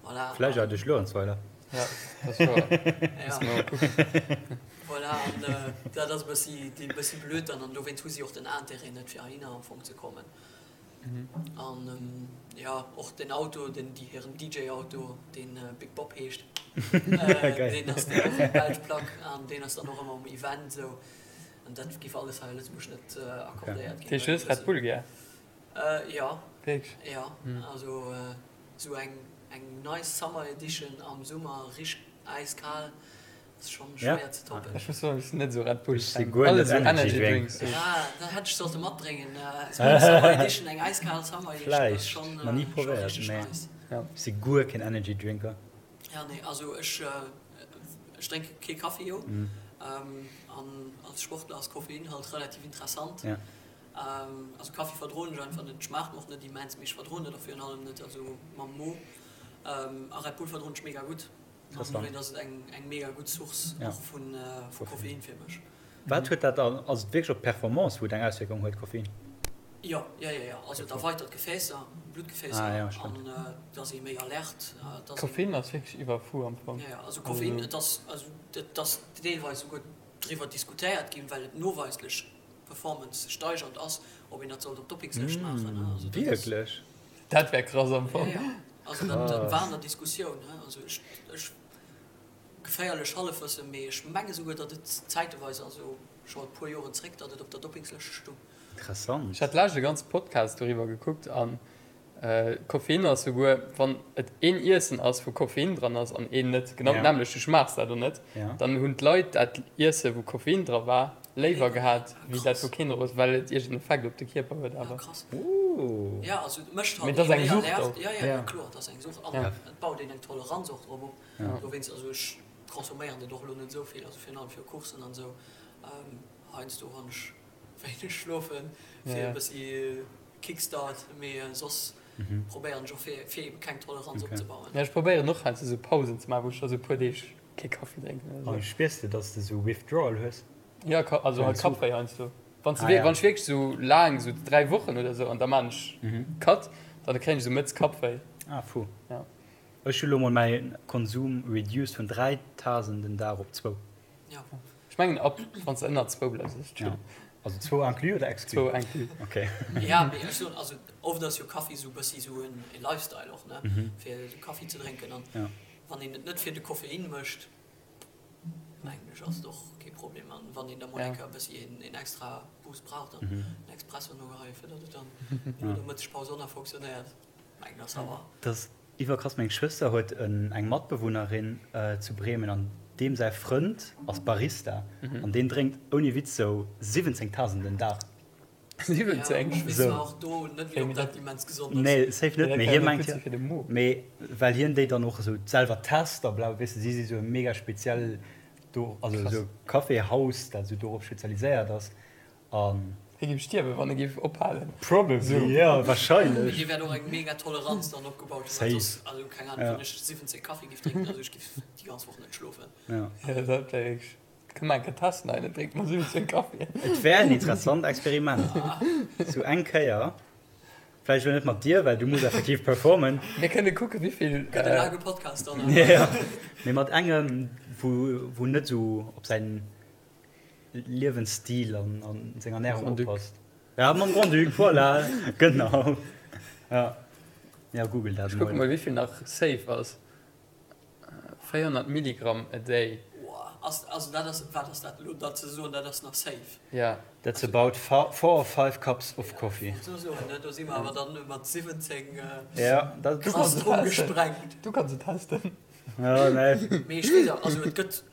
Voilà. Vläicht awer duerch Luerenzweiler. Ja, dat ass wouer. Muss mer mol kucken. Voilà, an dat ass e bëssi, e bëssi blöd dann. An dowéinst hu si och den Intérêt net, fir heihinner am Fong ze kommen. An jo, och den Auto, den, déi hiren DJ-Auto, deen Big Bob heescht, deen ass dann och eng belsch Plack an deen ass dann och ëmmer um Event esou. An dat géif alles hei a Lëtzebuerg net accordéiert ginn. Dat heescht, du hues Red Bull gär? Jo. Wierklech? Jo, also esou eng eng nice Summer Edition am Summer, richteg äiskal, ass schonn schwéier ze toppen. Ech muss soen, ech sinn net esou Red Bull Ech si Fan. guer Alles net esou Energy Energy Drinks. Drinks. Ja, dat hätt ech sollte matbréngen, esou eng Summer Edition, eng äiskal Summer Edition ass Vläicht, schonn nach ni scho probéiert, richteg mee nice. Ja. ech si guer keen Energy Drinker. Ja, nee, also ech ech drénke kee Kaffi jo, an als Sportler ass Koffein halt relativ interessant. Ja. Also Kaffi verdroen ech einfach net, schmaacht mer och net immens, mee ech verdroen et och virun allem net, also mam Mo. A Red Bull verdroen ech mega gutt, an dowéint ass et eng eng mega gutt Source och vu Koffein fir mech. Wat huet dat dann, ass et wierklech op d'Performance wou et eng Auswierkung huet, Koffein? Jo, jo, jo, jo, also et erweitert d'Gefäässer, Bluttgefäässer, an et ass ee méi alert. Koffein ass wierklech iwwerfu am Fong. Jo, jo, also Koffein, et ass, also et ass deelweis esouguer driwwer diskutéiert ginn, well et noweislech Performance steigernd ass, ob een dat sollt op d'Doppingslëscht maachen. Also dat ass. Wierklech? Dat wär krass am Fong. Jo, jo. Also dat, dat war an der Diskussioun. Also ech, ech, geféierlech Hallefwëssen, mee ech menge souguer, datt et zäiteweis, also scho e puer Joren zréck, datt et op der Doppingslëscht stung. Interessant. Ech hat d'lescht e ganze Podcast doriwwer gekuckt an Koffein ass souguer wann et een Iessen ass wou Koffein dran ass an een net, genau dat nämmlecht, du schmaachs dat och net, dann hunn d'Leit dat Iesse wou Koffein dra war léiwer gehat wéi dat wou keen dra ass, well et iergend en Effekt op de Kierper huet awer. Mee et ass eng Sucht och. Kickstart, mee soss probéieren ech och fir fir ebe keng Toleranz opzebauen. Ja, ech probéieren och heiansdo sou Pausen ze maachen, wou ech da sou e puer Deeg kee Kaffi drénken oder sou. Spiers de, dass de sou Withdrawal hues? Ja, also halt Kappwéi heiansdo. Wann s de, wann ech wierklech sou laang, sou 3 Wochen oder sou, an da maan ech Cut, dann kréien ech sou mëtts Kappwéi. Ah, fu. Ja. Ech hu lo mol mäi Konsum reduced vun 3 Tasen den Dag op zwou. Ja. Ech mengen ab wann s de ënner zwou bleifs ass et chill. Also zwou inclus oder exclus? Zwou inclus. Okay. Ja, mee ech soen, also oft ass jo Kaffi sou bëssi sou en Lifestyle och, ne, fir sou Kaffi ze drénken an wann een et net fir de Koffein mécht, mengen ech ass et och kee Problem an wann een da mol eng Kéier e bëssi een extra Boost brauch, dann en Expresso nogeheien, fir datt et dann no der Mëttespaus och nach fonctionnéiert, mengen ass awer. Dass Iwwerkrass, meng Schwëster huet eng Matbewunnerin zu Bremen an deem säi Frënd ass Barista an deen drénkt ouni Witz sou 17 Tasen den Dag. 17? Nee safe net, mee hie mengt jo, mee well hien déi dann och esou selwer test a bla, weess de, si si sou e mega speziell do, also esou e Caféhaus dat esou dorop spezialiséiert ass An. Hie géif stierwen, wann e géif ophalen. Probably, jo, wahrscheinlech. Hie wäert och eng mega Toleranz dann opgebaut hunn, well soss, also keng Ahnung, wann ech 17 Kaffi géif drénken, also ech géif déi ganz Woch net schlofen. Jo. Jo, dat wär wierklech. Kënne mer eng Kéier testen hei, dann drénke mer 17 Kaffien. Et wär en interessant Experiment. Sou eng Kéier. Vläicht elo net mat dir, well du muss effektiv performen. Mir kënne kucken, wéivill. Gëtt e laange Podcast dann. Jo, mee mat engem, wou, wou net esou op säin Liewensstil an, an seng Ernärung oppasst. Ja, mam Grand-Duc, voilà, genau. Ja, ja, google dat Ech kucke mol. mol, wéivill nach safe ass. 400 Milligramm a day. Ass, also dat ass, wat ass dat elo da ze soen, dat ass nach safe? Ja. That's about four or five cups of coffee. Wollt elo soen, ne, do si mer awer dann mat 17 Ja, dat, Du kanns et Krass testen. gesprengt. Du kanns et testen. Ja, nee. Mee ech weess awer, also et gëtt,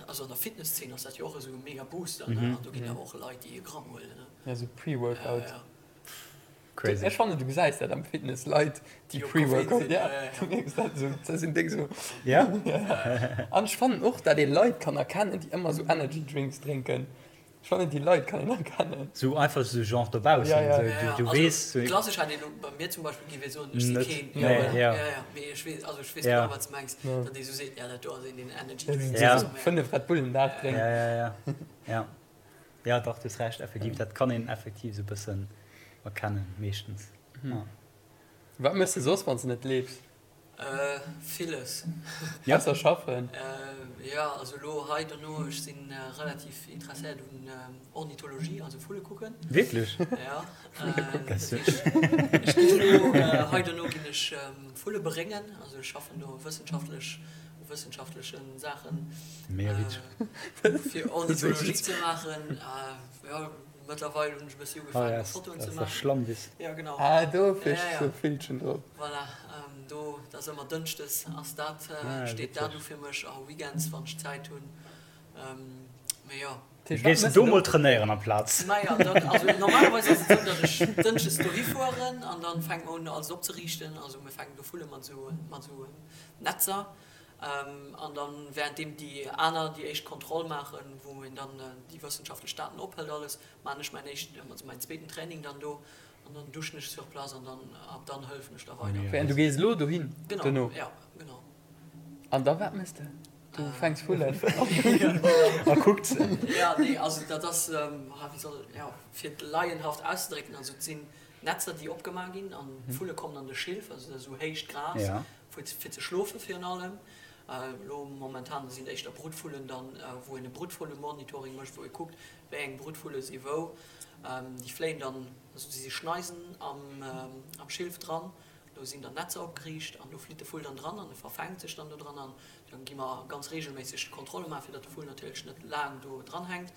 also an der Fitnesszeen ass dat jo och esou e mega Booster, ne, an do ginn awer och Leit, déi e Gramm huelen, ne. Ja, esou Pre-Workout. Ja, ja. Crazy. Ech fannen du gesäis dat am Fitness, Leit déi Pre-Workout, ja, du mierks dat esou, dat sinn déck esou. Ja? An ech fannen och dat ee Leit kann erkennen déi ëmmer esou Energy Drinks drénken. Ech fannen déi Leit kann een erkennen. Sou einfach sou genre dobaussen, Ja, ja. sou Ja, ja. du Also weess sou. klassesch hätt een elo bei mir zum Beispill géif ee soen, ech si Net, keen, nee, ja voilà, ja. ja, ja, mee ech weess, also ech weess Ja. genau wat s de mengs, Ja. datt ee sou seet, ja dat do ass een deen Energy Ja, Drinks Ja. oder sou, 5 Red Bull den Dag drénkt. Ja, ja, ja, ja. Ja dach, du hues Recht, effektiv, dat kann een effektiv esou bëssen erkennen, meeschtens. Ja. Wat méchs de soss, wann s de net leefs? Villes. Ja. Ausser schaffen? Jo, also elo hei dono, ech si relativ interesséiert un Ornithologie, also Vulle kucken. Wierklech? Ja. Vulle kucken. Dat heescht, ech ginn elo hei dono ginn ech Vulle beréngen, also ech schaffen do wëssenschaftlech u wëssenschaftleche Saachen. Mega witzeg. Fir Ornithologie ze maachen. Jo, mëttlerweil hunn ech e bëssi ugefaangen, Fotoen ze maachen. Schlammwiss. Ja, genau. Ah, do fir sou Villchen drop. Voilà, do, dat ass ëmmer dënschdes ass dat, steet dat u fir mech a Weekends, wann ech Zäit hunn. Mee jo. Gees de do mol trainéieren amplaz? Maja, dann, also normalerweis ass et esou, datt ech dënschdes dohi fueren an dann fänke mer un alles opzeriichten. Also mir fänken do Vulle mat esou, mat esou Netzer. An dann währenddeem déi aner déi éischt Kontroll maachen, wou een dann déi wëssenschaftlech Daten ophëlt alles, maachen ech mäin éischten, also mäin zweeten Training dann do an dann duschen ech sur place an dann ab dann hëllefen ech da weider. Wéi, an du gees elo dohin Genau, dono? ja, genau. An da wat méchs de? Du fänks Vullen? A kuckt se. Ja, nee, also dat ass, wéi soll, ja, fir et laienhaft auszedrécken, also et sinn Netzer déi opgemaach ginn an d'Vulle kommen an de Schilf, also dat ass esou héicht Gras, fir ze schlofe virun allem. Elo momentan sinn et éischter Brutvullen dann, wou een e Brutvullemonitoring mécht, wou ee kuckt, wéi eng Brutvulle si wou. Déi fléien dann, also si si Schneisen am Schilf dran, do sinn dann Netzer opgeriicht an do flitt de Vull dann dran an e verfänkt sech dann do dran an dann gi mer ganz reegelméisseg Kontrolle maachen, fir datt de Vull natierlech net laang do dran hänkt.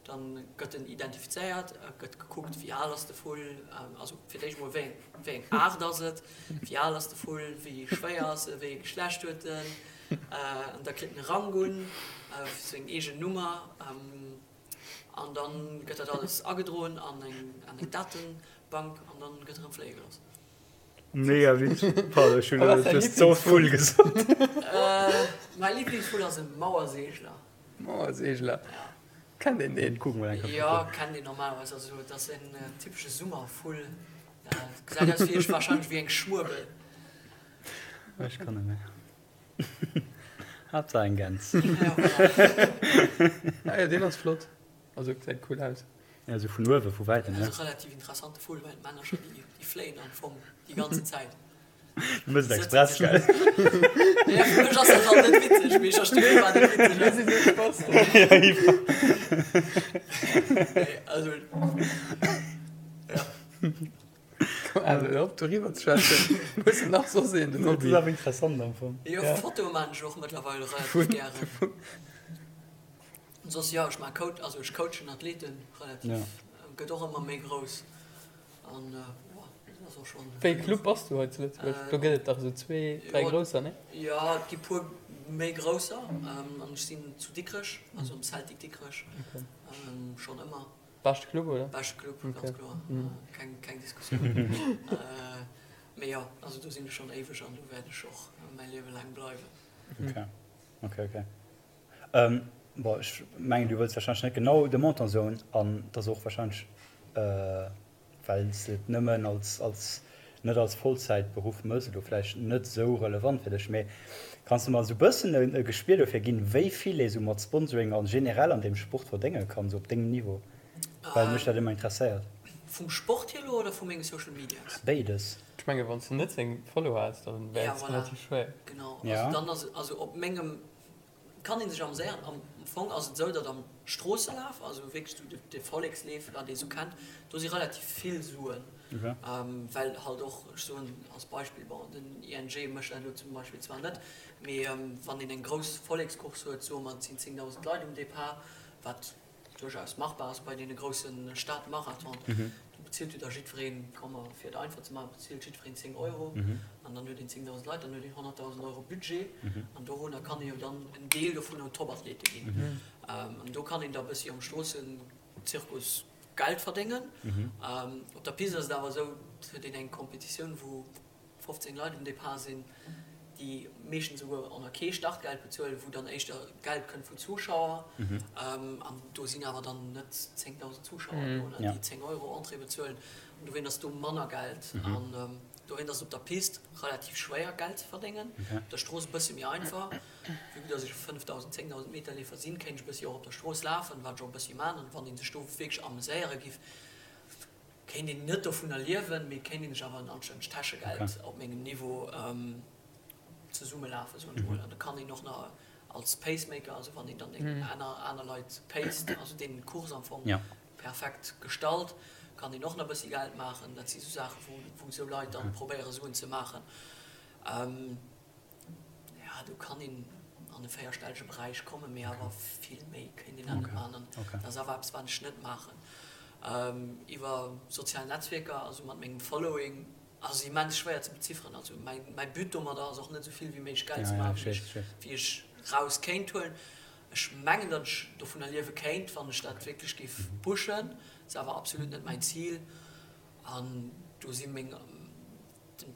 Dann gëtt en identifizéiert, et gëtt gekuckt, wéi al ass de Vull, also fir d'éischt emol, wéi eng, wéi eng Aart ass et, wéi al ass de Vull, wéi schwéier ass e, wéi ee Geschlecht huet en. An da kritt en e Rang un, seng eegen Nummer. An da gëtt dat alles agedroen an eng, an eng Datebank an dann gëtt erëm fléie gelooss. Mega witzeg. Pardon, ech hunn elo just sou Vull gesot. Mäi Liblingsvull ass e Mauerseegler. Mauerseegler? Kennt een deen? Kucken mol eng Kéier. Jo, kennt een normalerweis. Also et ass en typesche Summervull. Gesäit aus wéi ech, wahrscheinlech wéi eng Schmuebel. Ech kann net méi. Haaptsaach eng Gäns. Ja, voilà. Ah jo, deen ass flott. Also gesäit cool aus. Ja, sou vun uewe, vu wäitem, ne? Relativ interessante Vull, well d'Männercher déi fléien am Fong déi ganzen Zäit. Du mëss et express, gell? Ja, fir mech ass dat halt net witzeg, mee ech versti firwat et witzeg ass. Mir si sou Spasten. Ja, iwwer. Nee, also, ja. Komm, Al, hör op doriwwer ze schwätzen. Hues de nach soss een, den Dat Hobby? ass awer interessant am Fong. Jo, Fotoe maan ech och mëttlerweil relativ gären. Soss, jo, ech maan Coach, also ech coachen Athleten relativ, gëtt och ëmmer méi grouss. An dat ass och schonn. Wéi ee Club bass du hei zu Lëtzebuerg? Do gëtt et dach esou zwee, dräi grousser, nee? Jo, et gi puer méi grousser. An ech sinn zu Dikrech, also am Celtic Dikrech, schonn ëmmer. Beschte Club, oder? Beschte Club, ganz kloer. Keng, keng Diskussioun. Mee jo, also do sinn ech schonn éiweg an do wäert ech och mäi Liewe laang bleiwen. Ok, ok, ok. Bon, ech mengen, du wëlls warscheinlech net genau de Montant soen an et ass och warscheinlech, well s de et nëmmen als, als, net als Vollzäitberuff mëss, elo vläicht net esou relevant fir dech. Mee. Kanns de mer esou bëssen e Gespier dofir ginn, wéi vill ee sou mat Sponsoring a generell an deem Sport verdénge kann, sou op dengem Niveau? Well mech dat ëmmer interesséiert. Vum Sport hier elo oder vu menge Social Medias? Béides. Ech menge wann s de net seng Follower häss, da wär et relativ schwéier. Genau, also dann ass et, also op mengem kann ee sech ameséieren. Am Fong ass et esou, datt am Stroosselaf, also wierklech esou de Volleksleef, wat ee sou kennt, do si relativ vill Suen, well halt och, ech soen als Beispill, bon den ING mécht dat elo zum Beispill zwar net, mee wann een eng grouss Vollekscourse huet, soe mer et sinn 10.000 Leit um Depart, wat duerchaus machbar ass bei deene grousse Stadmarathonen, do bezilt jo da jiddwereen, komm mer fir et einfach ze maachen, bezilt jiddwereen 10 Euro an dann huet een 10.000 Leit, dann huet een 100.000 Euro Budget an dorunner kann ee jo dann en Deel dovun un Topathlete ginn. An do kann een da e bëssi am Stroossenzirkus Geld verdéngen. Op der Piste ass et awer esou, et huet een eng Competitioun, wou 15 Leit um Depart sinn, déi meeschtens esouguer och nach kee Startgeld bezuelen, wou dann éischter Geld kënnt vun Zuschauer. An do sinn awer dann net 10.000 Zuschauer do, déi 10 Euro Entrée bezuelen. An dowéint ass do manner Geld. An dowéint ass et op der Pist relativ schwéier, Geld ze verdéngen. Op der Strooss e bësse méi einfach. Vue que dass ech e 5.000, 10.000 Meter Leefer sinn, kéint ech e bëssi och op der Strooss lafen, wat ech och e bëssi man. An wann ee sech do wierklech ameséiere giff, Kéint een net dovunner liewen, mee kéint een sech awer en anstännegt Täschegeld op mengem Niveau zesummelafen, soen ech mol. An da kann een och nach als Pacemaker, also wann een dann eng aner aner Leit paced, also deenen d'Course am Fong perfekt gestalt, kann een och nach e bëssi Geld maachen. Dat si sou Saachen, wou wou esou Leit dann probéiere Suen ze maachen. Ja, do kann een an e véierstellege Beräich kommen, mee awer vill méi kéint een dat net maachen. An dat ass awer eppes, wat ech net maachen. Iwwer sozial Netzwierker, also mat mengem Following, ass immens schwéier ze bezifferen. Also mäi, mäi But domadder ass och net esou vill wéi méiglech Geld ze maachen, wéi ech, wéi ech raus kéint huelen. Ech mengen, datt ech dovunner liewe kéint, wann ech dat wierklech géif pushen. Ass awer absolut net mäin Zil. An do si meng.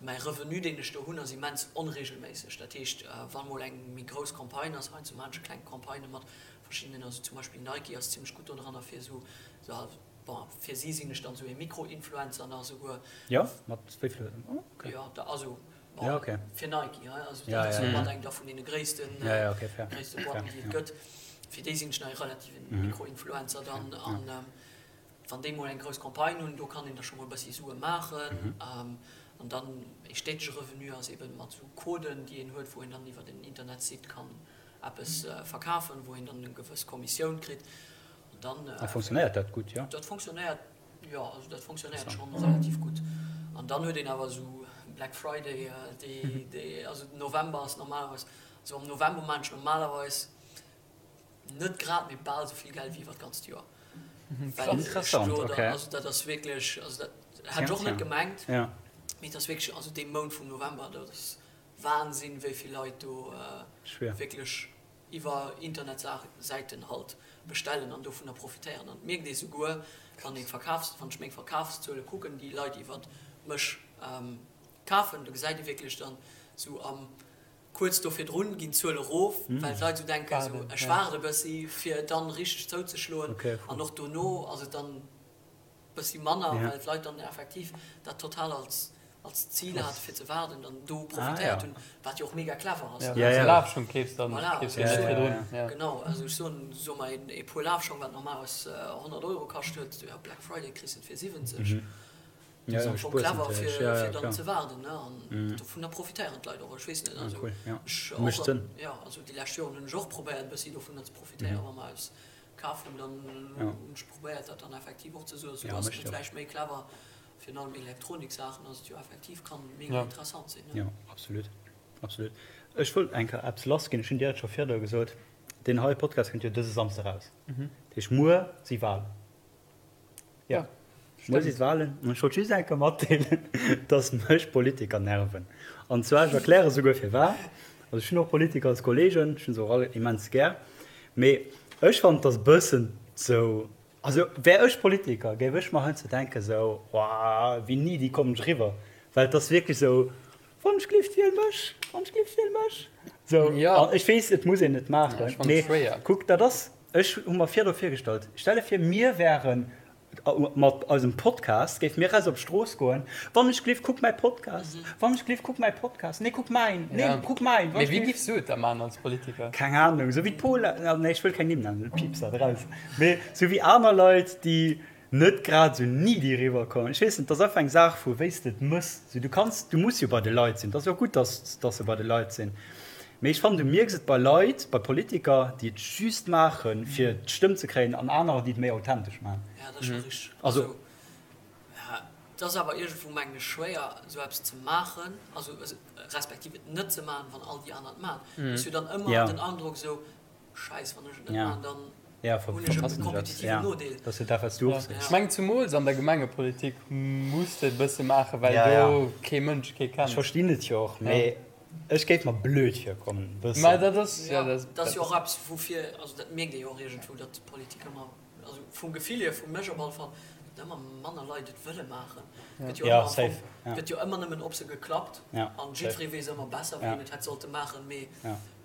Mäi Revenu, deen ech do hunn, ass immens onregelméisseg. Dat heescht, wa mol eng méi grouss Campagne ass, heiansdo maachen ech kleng Campagnë mat verschiddenen, also zum Beispill Nike ass zimmlech gutt dodranner fir esou, bon, fir si sinn ech dann esou ee Mikro-Influencer nach esouguer. Jo, mat wéi vill? Oh, okay. Jo, da, also, bon, ja, okay. Fir Nike, hei, also dat ass jo mat eng da vun deene gréissten, ja, ja, okay, fair. gréisste Boîten, déi et gëtt. Fir déi sinn ech nach ee relativen Mikro-Influencer dann an. Wann déi mol eng grouss Campagne hunn, do kann een da scho mol e bëssi Sue maachen. An dann ee stéitege Revenu ass eeben mat esou Coden, déi een huet, wou een dann iwwer en Internetsite kann eppes verkafen, wou een dann eng gewëss Kommissioun kritt. An dann. A fonctionnéiert dat gutt, jo? Dat fonctionnéiert, jo, also dat fonctionnéiert schonn relativ gutt. An dann huet een awer esou Black Friday, déi, déi, also den November ass normalerweis, also am November maachen ech normalerweis, Net grad, mee bal esou vill Geld wéi iwwer d'ganzt Joer. Interessant, ok. Also dat ass wierklech, also dat hat ech och net gemengt, mee et ass wierklech, also dee Mount vum November, dat ass Wahnsinn, wéi vill Leit do wierklech iwwer Internetsäiten halt bestellen an dovunner profitéieren. An et mierkt ee souguer, wann een d'Verkafs, wann ech meng Verkafszuele kucken, déi Leit iwwer mech kafen, do gesäit ee wierklech dann esou am Kuerz do virdrun ginn d'Zuele erof, well d'Leit esou denken, esou ech waarde e bëssi fir dann richteg zouzeschloen. An och dono ass et dann e bëssi manner, well d'Leit dann effektiv dat total als als Zil hate fir ze waarden an do profitéiert hunn, wat jo och mega clever ass. Ja, wann s de Lafschong keefs, dann keefs de net virdrun. Genau, also ech soen, soe mer ee Puer Lafschong, wat normalerweis 100 Euro kascht huet, jo Black Friday kriss de et fir 70. Ja, ja, spuers clever fir, ja, ja, fir dann ze waarden ne an mm. dovunner profitéieren d'Leit och ech weess net also, ah, cool, ja. ech och, ja, also déi lescht Joren hunn ech och probéiert bëssi dovunner ze profitéieren mm. wa mer eppes kaf hunn dann ja. hunn ech probéiert dat dann effektiv och ze soen so ja, ass et vläicht méi clever virun allem Elektroniksaachen ass et jo effektiv kann mega ja. interessant sinn ne? Ja, absolut absolut. Ech wollt eng Kéier eppes lass ginn, ech hunn dir dat scho virdru gesot, deen heie Podcast kënnt jo dëse Samsde raus. Mhm. Dat heescht muer si Walen. Ja, muer si d'Walen. An ech wollt just eng Kéier matdeelen, dass mech Politiker nerven. An zwar, ech erkläre souguer firwat. Also ech hunn och Politiker als Kollegen, ech hunn se och all immens gär. Mee ech fannen, et ass e bëssen sou, also wär ech Politiker, géif ech mer heiansdo denken sou, Woah, wéi needy kommen ech eriwwer? Well et ass wierklech sou, Wann ech glift, wiel mech! Wann ech glift, wiel mech! Sou, an ech weess, et muss een net maachen, mee kuck, dat ass, ech hu mer virdu virgestallt, stell der vir, mir wären. Mat eisem Podcast géife mir raus op d'Strooss goen, Wann ech gleef, kuck mäi Podcast, wann ech gleef, kuck mäi Podcast, nee kuck mäin, nee kuck mäin, wann ech gleef. Mee wéi giffs du et da maachen als Politiker? Keng Ahnung, sou wéi d'Paula, nee ech wëll keng Nimm nennen, piips dat eraus, mee sou wéi aner Leit, déi net grad sou needy eriwwer kommen. Ech weess net, et ass einfach eng Saach vu wéi s de et mëss. Sou du kanns, du muss jo bei de Leit sinn, et ass jo och gutt, dass dass se bei de Leit sinn. Mee ech fannen, du mierks et bei Leit, bei Politiker, déi et just maachen, fir d'Stëmm ze kréien, an anerer, déi et méi authentesch maachen. Ja, dat ass scho richteg. Also, ja, et ass awer iergendwou, mengen ech, schwéier, esou eppes ze maachen, also respektiv et net ze maachen, wann all déi aner et maachen. Du hues jo dann ëmmer den Androck esou, Scheiss, wann ech et net maachen, dann hunn ech e kompetitiven Nodeel. Ech mengen zumools an der Gemengepolitik muss de et e bësse maachen, well do kee Mënsch kee kennt. Ech verstinn et jo och, mee ech géif mer blöd virkommen e bëssen. Mä dat ass, jo, dat ass jo och eppes woufir, also dat mierkt ee jo och iergendwou, datt d'Politik ëmmer, also vum Gefill hier, vu mech op alle Fall, datt ëmmer manner Leit et wëlle maachen. Et gëtt jo ëmmer am Fong, et gëtt jo ëmmer nëmmen op se geklappt an jiddweree weess ëmmer besser, wéi een et hätt sollte maachen, mee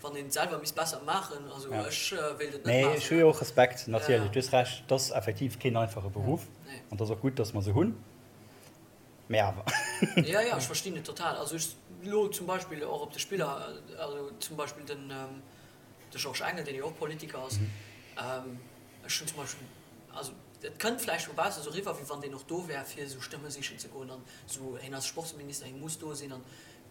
Wann een et selwer misst besser maachen, also ech wéilt et net maachen. Nee, ech hu jo och Respekt, natierlech. Du hues Recht, et ass effektiv keen einfache Beruff an et ass och gutt, datt mer se hunn, mee awer. Jo, jo, ech verstinn et total. Also ech elo zum Beispill och op de Spiller, also zum Beispill den de Georges Engel, deen jo och Politiker ass, ech hunn zum Beispill, also et kënnt vläicht vu baussen esou eriwwer, wéi wann deen och do wär, fir esou Stëmme sichen ze goen an esou, hien ass Sportsminister, hie muss do sinn an,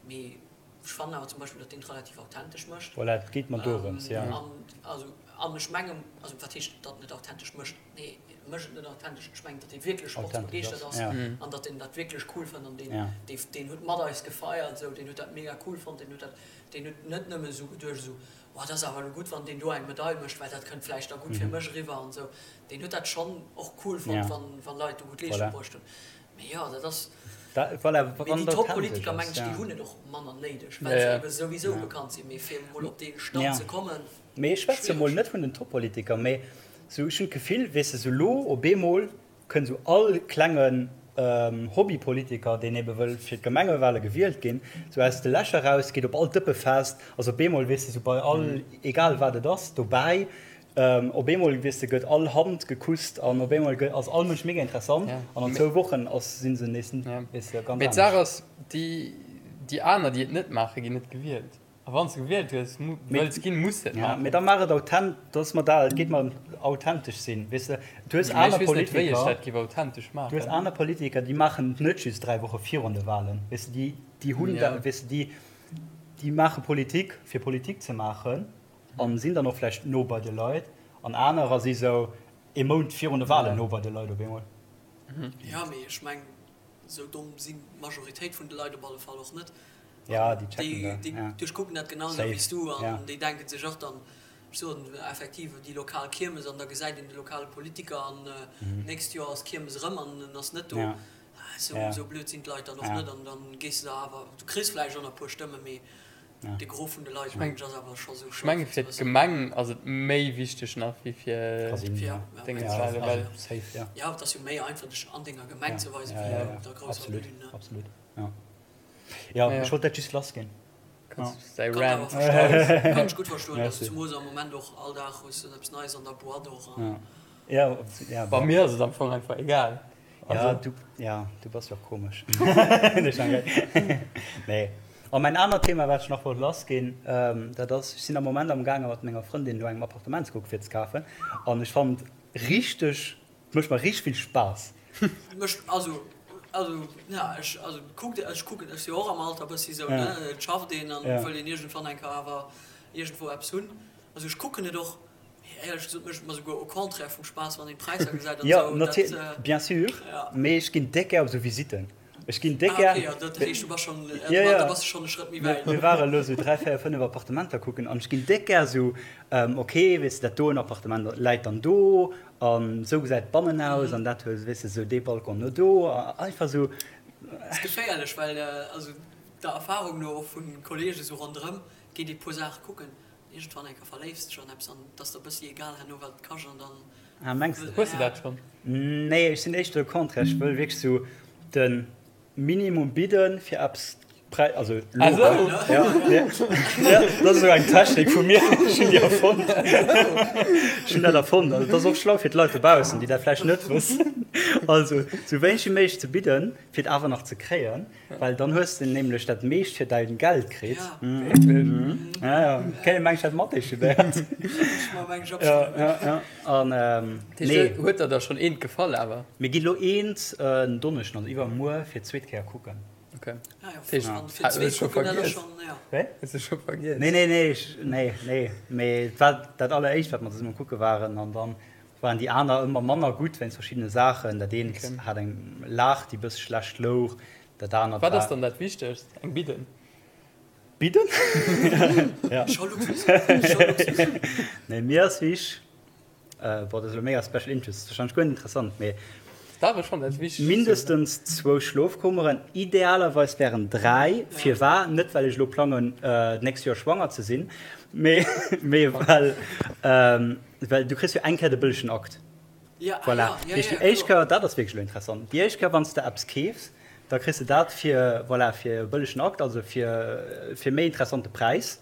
mee Ech fannen awer zum Beispill, datt deen et relativ authentesch mécht. Voilà, et geet mer dorëms, jo. An, also, an ech mengen, also wat heescht, datt en et authentesch mécht? Nee, e mécht et net authentesch. Ech mengen, datt e wierklech sportsbegeeschtert ass an datt en dat wierklech cool fënnt an deen, dee, deen huet mat eis gefeiert esou, deen huet dat mega cool fonnt, deen huet dat, deen huet net nëmme esou geduecht esou, oh dat ass awer elo gutt, wann deen do eng Medail mécht, well dat kënnt vläicht da gutt fir mech eriwwer an esou. Deen huet dat schonn och cool fonnt, wann, wann Leit do gutt Leeschtung bruecht hunn. Mee jo, dat ass. Voilà, Mee déi Top-Politiker, mengen ech, déi hunn et och manner néideg, well se ebe souwisou bekannt sinn. Mee fir emol op dee Stand ze kommen. Mee ech schwätze mol net vun den Top-Politiker, mee sou ech hunn d'Gefill, weess de, sou lo op eemol kënnt sou all klengen Hobbypolitiker, deen ebe wëll fir d'Gemengewale gewielt ginn, sou aus de Lächer raus, geet op all Dëppefest, ass op eemol, weess de, sou bei all, egal wat et ass, dobäi. Op eemol, weess de, gëtt all Hand gekusst an op eemol ass all Mënsch mega interessant an an zwou Wochen ass, si se nees, weess de, ganz Mee d'Saach anescht. ass, déi, déi aner, déi et net maachen, ginn net gewielt. A wann s de gewielt hues, wëlls ginn, muss de et Ja, maachen. mee da maach et authent, dat ass mer dat, et geet mer ëm authentesch sinn, weess de. Du hues Mee ech aner weess net, wéi ech Politiker, dat géif authentesch du hues maachen. aner Politiker, déi maachen et net just 3 Woche virun de Walen, weess de, déi, déi hunn da, weess de, déi, déi maache Politik, fir Politik ze maachen. An sinn dann och vläicht no bei de Leit. An anerer si sou ee Mount virun de Walen no bei de Leit op eemol. Jo, mee ech mengen, sou domm sinn d'Majoritéit vun de Leit op alle Fall och net. Ja, déi checken dat. Déi duerchkucken dat genau esou wéi s du an déi denken sech och dann, ech soen effektiv, déi lokal Kiermes an da gesäit een de lokale Politiker an d'nächst Joer ass d'Kiermes erëm an en ass net do. Sou blöd sinn d'Leit dann och net an dann gees de da awer, du kriss vläicht och nach e puer Stëmmen, mee De Gros vun de Leit mengen ech ass awer scho sou schlau. Ech menge fir d'Gemeng ass et méi wichteg nach wéi fir Déngens, well. Jo, et ass jo méi einfach dech an denger Gemeng ze weisen wéi op der grousser Bühn. Absolut, jo. Jo, ech wollt dat just lass ginn. Kanns däi Rant. Kann ech gutt verstoen, also zumools am Moment och all Dag hues de eppes Neies an der Boîte och. Jo, jo. Bei mir ass et am Fong einfach egal. Ja, du, ja, du bass jo och komesch. Nee. A mäin anert Thema, wat ech nach wollt lassginn, dat ass, ech sinn am Moment am gaange mat menger Frëndin no engem Appartement ze kucken, fir ze kafen. An ech fannen et richteg, et mécht mer richteg vill Spaass. Mécht, also, also, ja, ech, also kuckt, ech kucken, ech si jo och am Alter bëssi sou, ne, et schafft een an et wëll een iergendwann eng Kéier awer iergendwou eppes hunn. Also ech kucken et och. Éierlech gesot mécht et mer souguer au contraire vum Spaass, wann een d'Präisser gesäit an esou. Jo, natierlech, bien sûr, mee ech ginn déck gär op esou Visitten. Ech ginn déck gär. Ah, ok, jo, dat heescht, du bass schonn, da bass de schonn e Schrëtt méi wäit. Mir ware elo esou 3, 4, 5 Appartementer kucken an ech ginn déck gär esou, ok, weess de, dat doen Appartement läit dann do an esou gesäit d'Bannen aus an dat huet, weess de, esou dee Balcon no do, einfach esou. Ass geféierlech, well also der Erfahrung no och vu Kollege esou ronderëm, geet ee puer Saache kucken, Iergendwann eng Kéier verléifs dech an eppes an et ass der bëssi egal herno wat et kascht an dann. Ah mengs de? Hues de dat schonn? Nee, ech sinn éischter le contraire, ech wëll wierklech sou de Minimum bidden fir eppes. Präis, also lo, ja, ja, ja, dat ass esou eng Technik vu mir, ech hunn déi erfonnt. Ech hunn dat erfonnt. Also dat ass och schlau fir d'Leit dobaussen, déi dat vläicht net wëssen. Also sou wéineg wéi méiglech ze bidden, fir et awer nach ze kréien, well dann hues de nämlech dat meescht fir däin Geld kritt. Wierklech? Ja, ja. Kéint een mengen, ech hätt Mathé studéiert. Ja, ja, ja. An, nee. Huet der da schonn eent gefall awer? Mir ginn elo eent en Donneschden, also iwwermuer, fir d'zweet Kéier kucken. Okay. Ah, ja, Hues du scho vergiess? Wéi? Hues du scho vergiess? Nee, nee, nee, ech, nee, nee. Mee et war dat alleréischt, wat mer zesumme kucke waren. An dann waren déi aner ëmmer manner gutt wéinst verschiddene Saachen. Dat eent Okay. hat eng Laach, déi e bësse schlecht louch. Dat anert Wat ass war. dann dat Wichtegst? Eng Bidden? Bidden? Ja. Scho Luxus. Scho Luxus. Nee, mir ass wichtig, Boah, dat ass elo mega special interest, ass wahrscheinlech guer net interessant, mee Dach, ech fannen dat wichteg. Mindestens zwou Schlofkummeren, idealerweis wären 3. Firwar? Net well ech elo plangen d'nächst Joer schwanger ze sinn, mee mee well well du kriss jo eng Kéier de bëllegen Akt. Voilà, dat heescht déi éischt Kéier, dat ass wierklech elo interessant, déi éischt Kéier wann s de eppes keefs, da kriss de dat fir, voilà, fir e bëllegen Akt, also fir fir méi interessante Präis.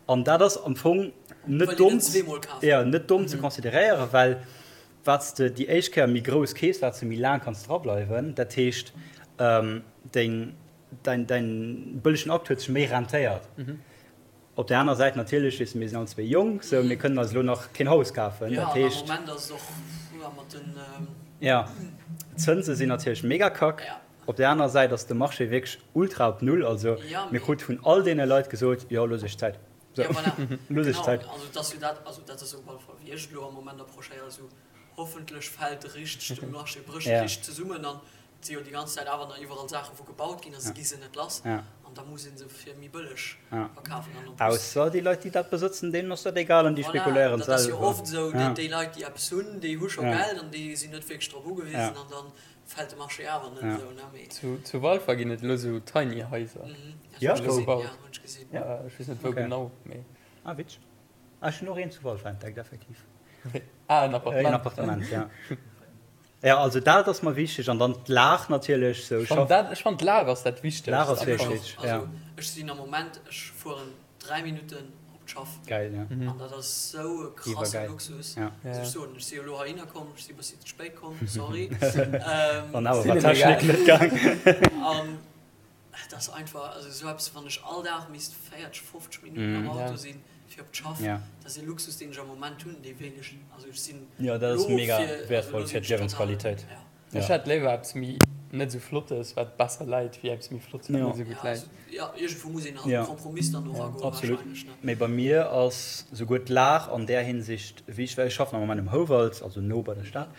An dat ass am Fong net domm, ja, net domm ze consideréieren, well wat s de déi éischt Kéier méi grouss keefs, wat s de méi laang kanns drableiwen. Dat heescht, deng, däin, däin bëllegen Akt huet sech méi rentéiert. Op där aner Säit natierlech, weess de, mir sinn all zwéi jonk, sou, mir kënnen eis elo nach keen Haus kafen. Dat heescht. Ja, d'Zënse sinn natierlech mega kack. Op där aner Säit ass de Marché wierklech ultra op Null. Also mir krute vun all deene Leit gesot, jo looss iech Zäit. Ja, voilà. Looss iech Zäit. Genau, also et ass jo dat, also dat ass op alle Fall wéi ech et elo am Moment approchéieren, esou hoffentlech fält richteg de Marché, brécht richteg zesummen an et si jo déi ganz Zäit awer nach iwwerall Saache wou gebaut ginn a se gi se net lass an da muss ee se fir méi bëlleg verkafen an en plus. Ausser déi Leit déi dat besëtzen, deenen ass dat egal an déi Voilà, spekuléieren dat ass jo selwer. oft esou, déi Leit déi eppes hunn, déi hu scho Geld an déi sinn net wierklech drop ugewisen an dann Fällt de Marché awer net esou, ne? Mee. Zu Walfer ginn et elo sou Tiny Haiser. Ja, hunn ech gesinn. Ja, hunn ech gesinn. Ja, ech weess net wou genau, mee. Ah, witzeg. Ah, ech hunn och eent zu Walfer entdeckt, effektiv. Ah, en Appartement. En Appartement, ja. Ja, also dat ass mer wichteg an dann d'Lag natierlech, sou. Ech fannen dat, ech fannen d'Lag ass dat Wichtegst. D'Lag ass wierklech wichteg, ja. Also ech sinn am Moment, ech fueren 3 Minutten op d'Schaff. Geil, ja. An dat ass sou e krasse Luxus. Ja. Muss ech soen. Ech si jo elo heihinner komm, ech si bëssi ze spéit komm, sorry. An awer war d'Technik net gaang. An et ass einfach, also sou eppes, wann ech all Dag misst 40, 50 Minutten am Auto sinn fir op d'Schaff, dat ass e Luxus, deen ech am Moment hunn, dee wéilt ech, also ech sinn Jo, dat ass elo mega fir, also elo wäertvoll sinn fir ech total, d'Liewensqualitéit. ja. Ech hätt léiwer eppes méi net esou flottes wat besser läit wéi eppes méi flottes wat net esou gutt läit. Jo, iergendwou muss een halt e Kompromiss dann och agoen Absolut. Mee bei mir ass souguer d'Lag an där Hinsicht wichteg, well ech schaffen am Moment um Houwald, also no bei der Stad,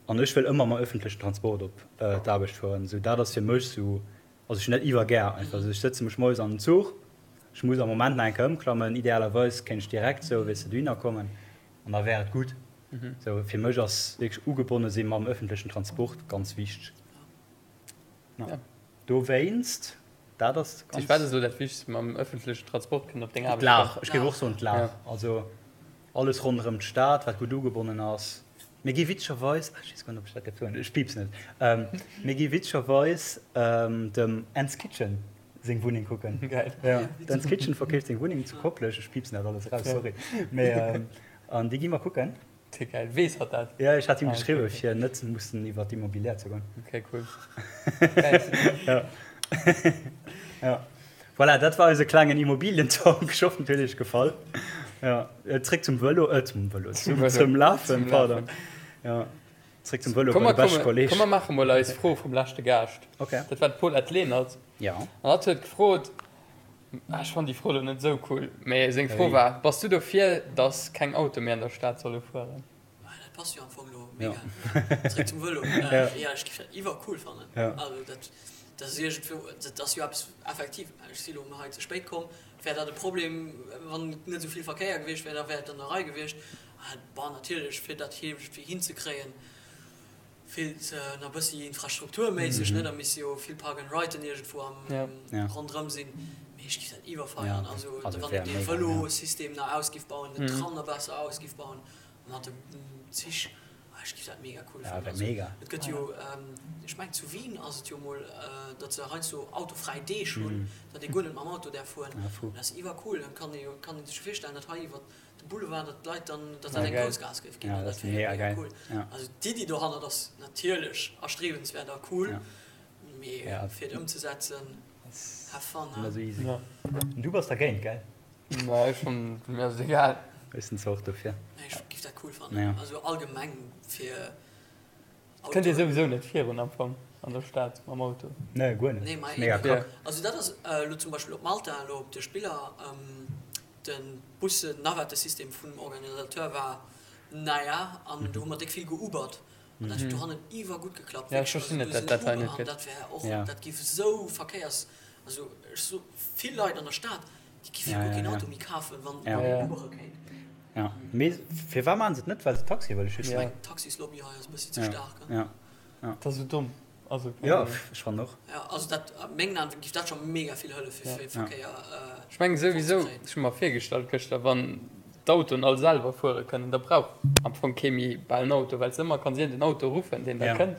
an ech wëll ëmmer mam öffentlechen Transport op d'Aarbecht fueren. Esou dat ass fir mech esou, also ech hunn dat iwwergär einfach. Also ech sëtze mech moies an den Zuch, ech muss am Moment nach eng Kéier ëmklammen, idealerweis kéint ech direkt esou, weess de, dohinner kommen an da wär et gutt. Sou fir mech ass wierklech ugebonne si mam öffentlechen Transport ganz wichteg. Ja. Dowéinst, dat ass ganz. Wat ass elo dat Wichtegst mam öffentlechen Transport kënnen op deng Aarbecht D'Lag, kommen? ech géif och soen d'Lag. Ja. Also alles ronderëm d'Stad, wat gutt ugebonnen ass. Mir gi witzegerweis, ech weess guer net, ob ech dat dierf soen, ech piipsen et, mir gi witzegerweis dem Ends Kitchen seng Wunneng kucken. Geil. Ja, d'Ends Kitchen verkeeft seng Wunneng zu Koplescht. Ech piipsen dat alles eraus, sorry. Mee An déi gi mer kucken. Te geil. Weess hatt dat? Jo, ech hat him geschriwwen, fir net mussen iwwer d'Immobilière ze goen. Ok, cool. Geil. Ja. Ja. Voilà, dat war eise klengen Immobilien-Talk. Ech hoffen, et huet iech gefall. Ja. Zréck zum Vëlo, äh, zum Vëlo, zum, zum Lafen, pardon. Ja. Zréck zum Vëlo Komm, bei de beschte komm, Kolleg. komm, mer maache mol eis Fro vum leschte Gaascht. Ok. Dat war d'Paulette Lenert. Ja. An hatt huet gefrot, Ech fannen déi Fro lo net esou cool, mee seng Fro war, Bass du dofir, dass keng Autoe méi an der Stad solle fueren? Dat passt jo am Fong lo mega. Zréck zum Vëlo. Jo, ech géif dat iwwercool fannen. Also dat, dat ass iergendwou, dat ass jo eppes effektiv, ech si lo hei ze spéit komm, wär dat e Problem, wann net esou vill Verkéier gewiescht wär, da wär et an der Rei gewiescht. Bon, natierlech, fir dat iergendwéi hinzekréien, Feelt nach bëssi infrastrukturméisseg, ne? Da misst jo vill Park and Riden iergendwou am ronderëm sinn. Mee ech géif dat iwwerfeieren. Also wann een dee Vëlosystem nach ausgiff bauen, den Tram nach besser ausgiff bauen, mat de Zich. Ech géif dat mega cool Ja, fannen. wär Also, mega. et gëtt jo, ech mengen zu Wien ass et jo mol, datt se heiansdo autofräi Deeg hunn, datt ee guer net mam Auto däerf fueren. Ja, fou. Dat ass iwwercool. Dann kann ee jo, kann ee sech jo virstellen, datt hei iwwer de Boulevard, datt d'Leit dann, datt dat Ja, eng geil. grouss Gaass géif ginn. Ja, An dat dat ass wär jo mega mega geil. cool. Ja. Also d'Iddi dohannert ass natierlech erstrebenswäert a cool, Ja. mee Ja. fir et ëmzesetzen, Ass have fun, net hein. esou easy. Ja. An du bass dergéint, gell? Ma ech schonn, mir ass et egal. Ech sinn zwar och dofir. Nee, ech giff dat cool fannen. Ja. Also allgemeng fir Et kënnt ee Autoen. souwisou net virun am Fong an der Stad mam Auto. Nee, guer net. Nee, ma Mega eben. Kack. Also dat ass elo zum Beispill op Malta, elo op de Spiller, de Bussen-Navettesystem vum Organisateur war naja, an do hu mer déck vill geubert. An dat huet dohannen iwwer gutt geklappt. Ja, ech verstinn net, dat dat hei net An gëtt. dat wär och, Ja. dat giff esou Verkéiers, also ech so vill Leit an der Stad, déi giffe Ja, guer ja, keen ja. Auto méi kafen, wann Ja. wann Ja. een Ubere kéint. Ja. Mee firwat maachen se et net? Well se Taxie wëlle Ech schützen? Ja. mengen d'Taxislobby hei ass e bëssi ze Ja. staark, hein. Ja. Dat ass esou domm. Also, keng Ja, Ahnung. ech fannen och. Ja, also dat, a mengen Aen giff dat scho mega vill hëllefe Ja. fir Ja. Verkéier Ech mengen souwisou, fortzekréien. ech hu mer virgestallt gëschter, wann d'Autoen all selwer fuere kënnen, da brauch am Fong kee méi bal en Auto, well s de ëmmer kanns iergend en Auto ruffen, deen da Ja. kënnt.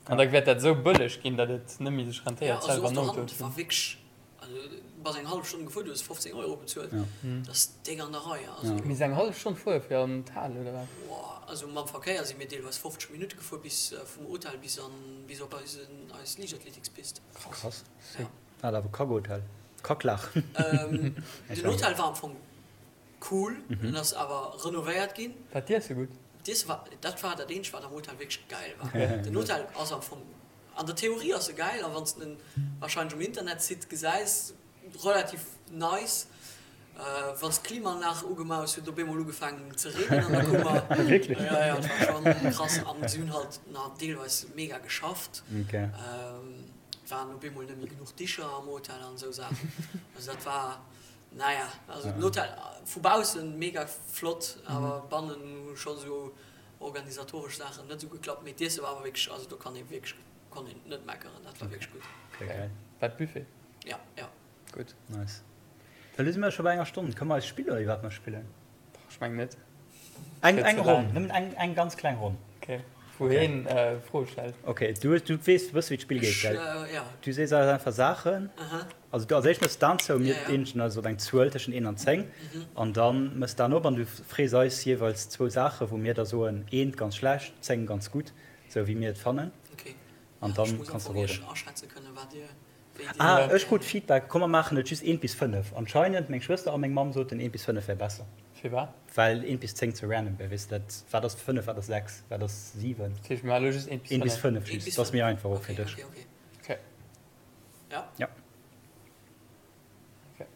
An da wäert dat esou bëlleg ginn, datt et net méi sech Ja, rentéiert, also selwer och en Auto dohannen ze hunn. war wierklech, also du bass eng hallef Stonn gefuer, du hues 15 Euro bezuelt, Ja. dat ass déck an der Rei. Also, Ja. Mee eng hallef Stonn fuere fir an d'Hal, oder wat? boah, also mam Verkéier si mir deelweis 50 Minutte gefuer bis vum Hotel bis an, bis op eisen, eis Liichtathletikspist. Krass. Ja. Hat awer Kackhotel. Kacklaach. Ähm, den Hotel war am Fong cool, en ass awer renovéiert ginn. War d'Iesse gutt? D'Iesse war, dat war dat eenzegt wat am Hotel wierklech geil war. Den Hotel ass am Fong, an der Theorie ass e geil a wann s de en warscheinlech um Internetsite gesäis, relativ nice. Wann s d'Klimaanlag ugemaach hues, huet et op eemol ugefaangen ze reenen an der Kummer. Wierklech? Jo, jo, et war schonn krass an si hunn halt nach deelweis mega geschafft. Okay. Et waren op eemol net méi genuch Dicher am Hotel an esou Saachen. Also dat war. Naja, also den Hotel vu baussen mega flott, awer bannen hu scho sou organisatoresch Saachen net sou geklappt. Mee d'Iesse war awer wierklech, also do kann ee wierklech, konnt een net meckeren, dat war wierklech gutt. Okay, geil. War et Buffet? Ja, ja. Gutt. Nice. Elo si mer scho bei enger Stonn. Kënne mer eis spillen, iwwer wat mer spillen? Ech mengen net. Eng, eng Ronn, nëmmen eng, eng ganz kleng Ronn. Okay. Wou heen Froe stellt. Okay, du, du weess, du wëss wéi d'Spill geet, gell? Ja. Du sees eis einfach Saachen. Aha. Also du als éischt mëss d'Aen zou, mir Ja, ja. eenegen eis op eng Zuel tëschent 1 an 10. An dann mëss d'Aen op an du frees eis jeeweils zwou Saachen, wou mir da soen, eent ganz schlecht, 10 ganz gutt, sou wéi mir et fannen. Okay. An Ja, dann ech muss am kanns du Fong iech roden. aschätze kënnen, wat dir, wéi dir. Ah, ech krut Feedback, komm mer maachen et just 1 bis 5. Anscheinend, meng Schwëster a meng Mamm soten 1 bis 5 wär besser. Firwat? Well 1 bis 10 ze random wär, weess de, dat, wat ass 5, wat ass 6, wat ass 7? Dat heescht, mir maache elo just 1 bis 1 bis 5. 5 1 just, bis dat ass méi 5. einfach och fir Okay, dech. okay, okay. Okay. Ja? Ja. Okay.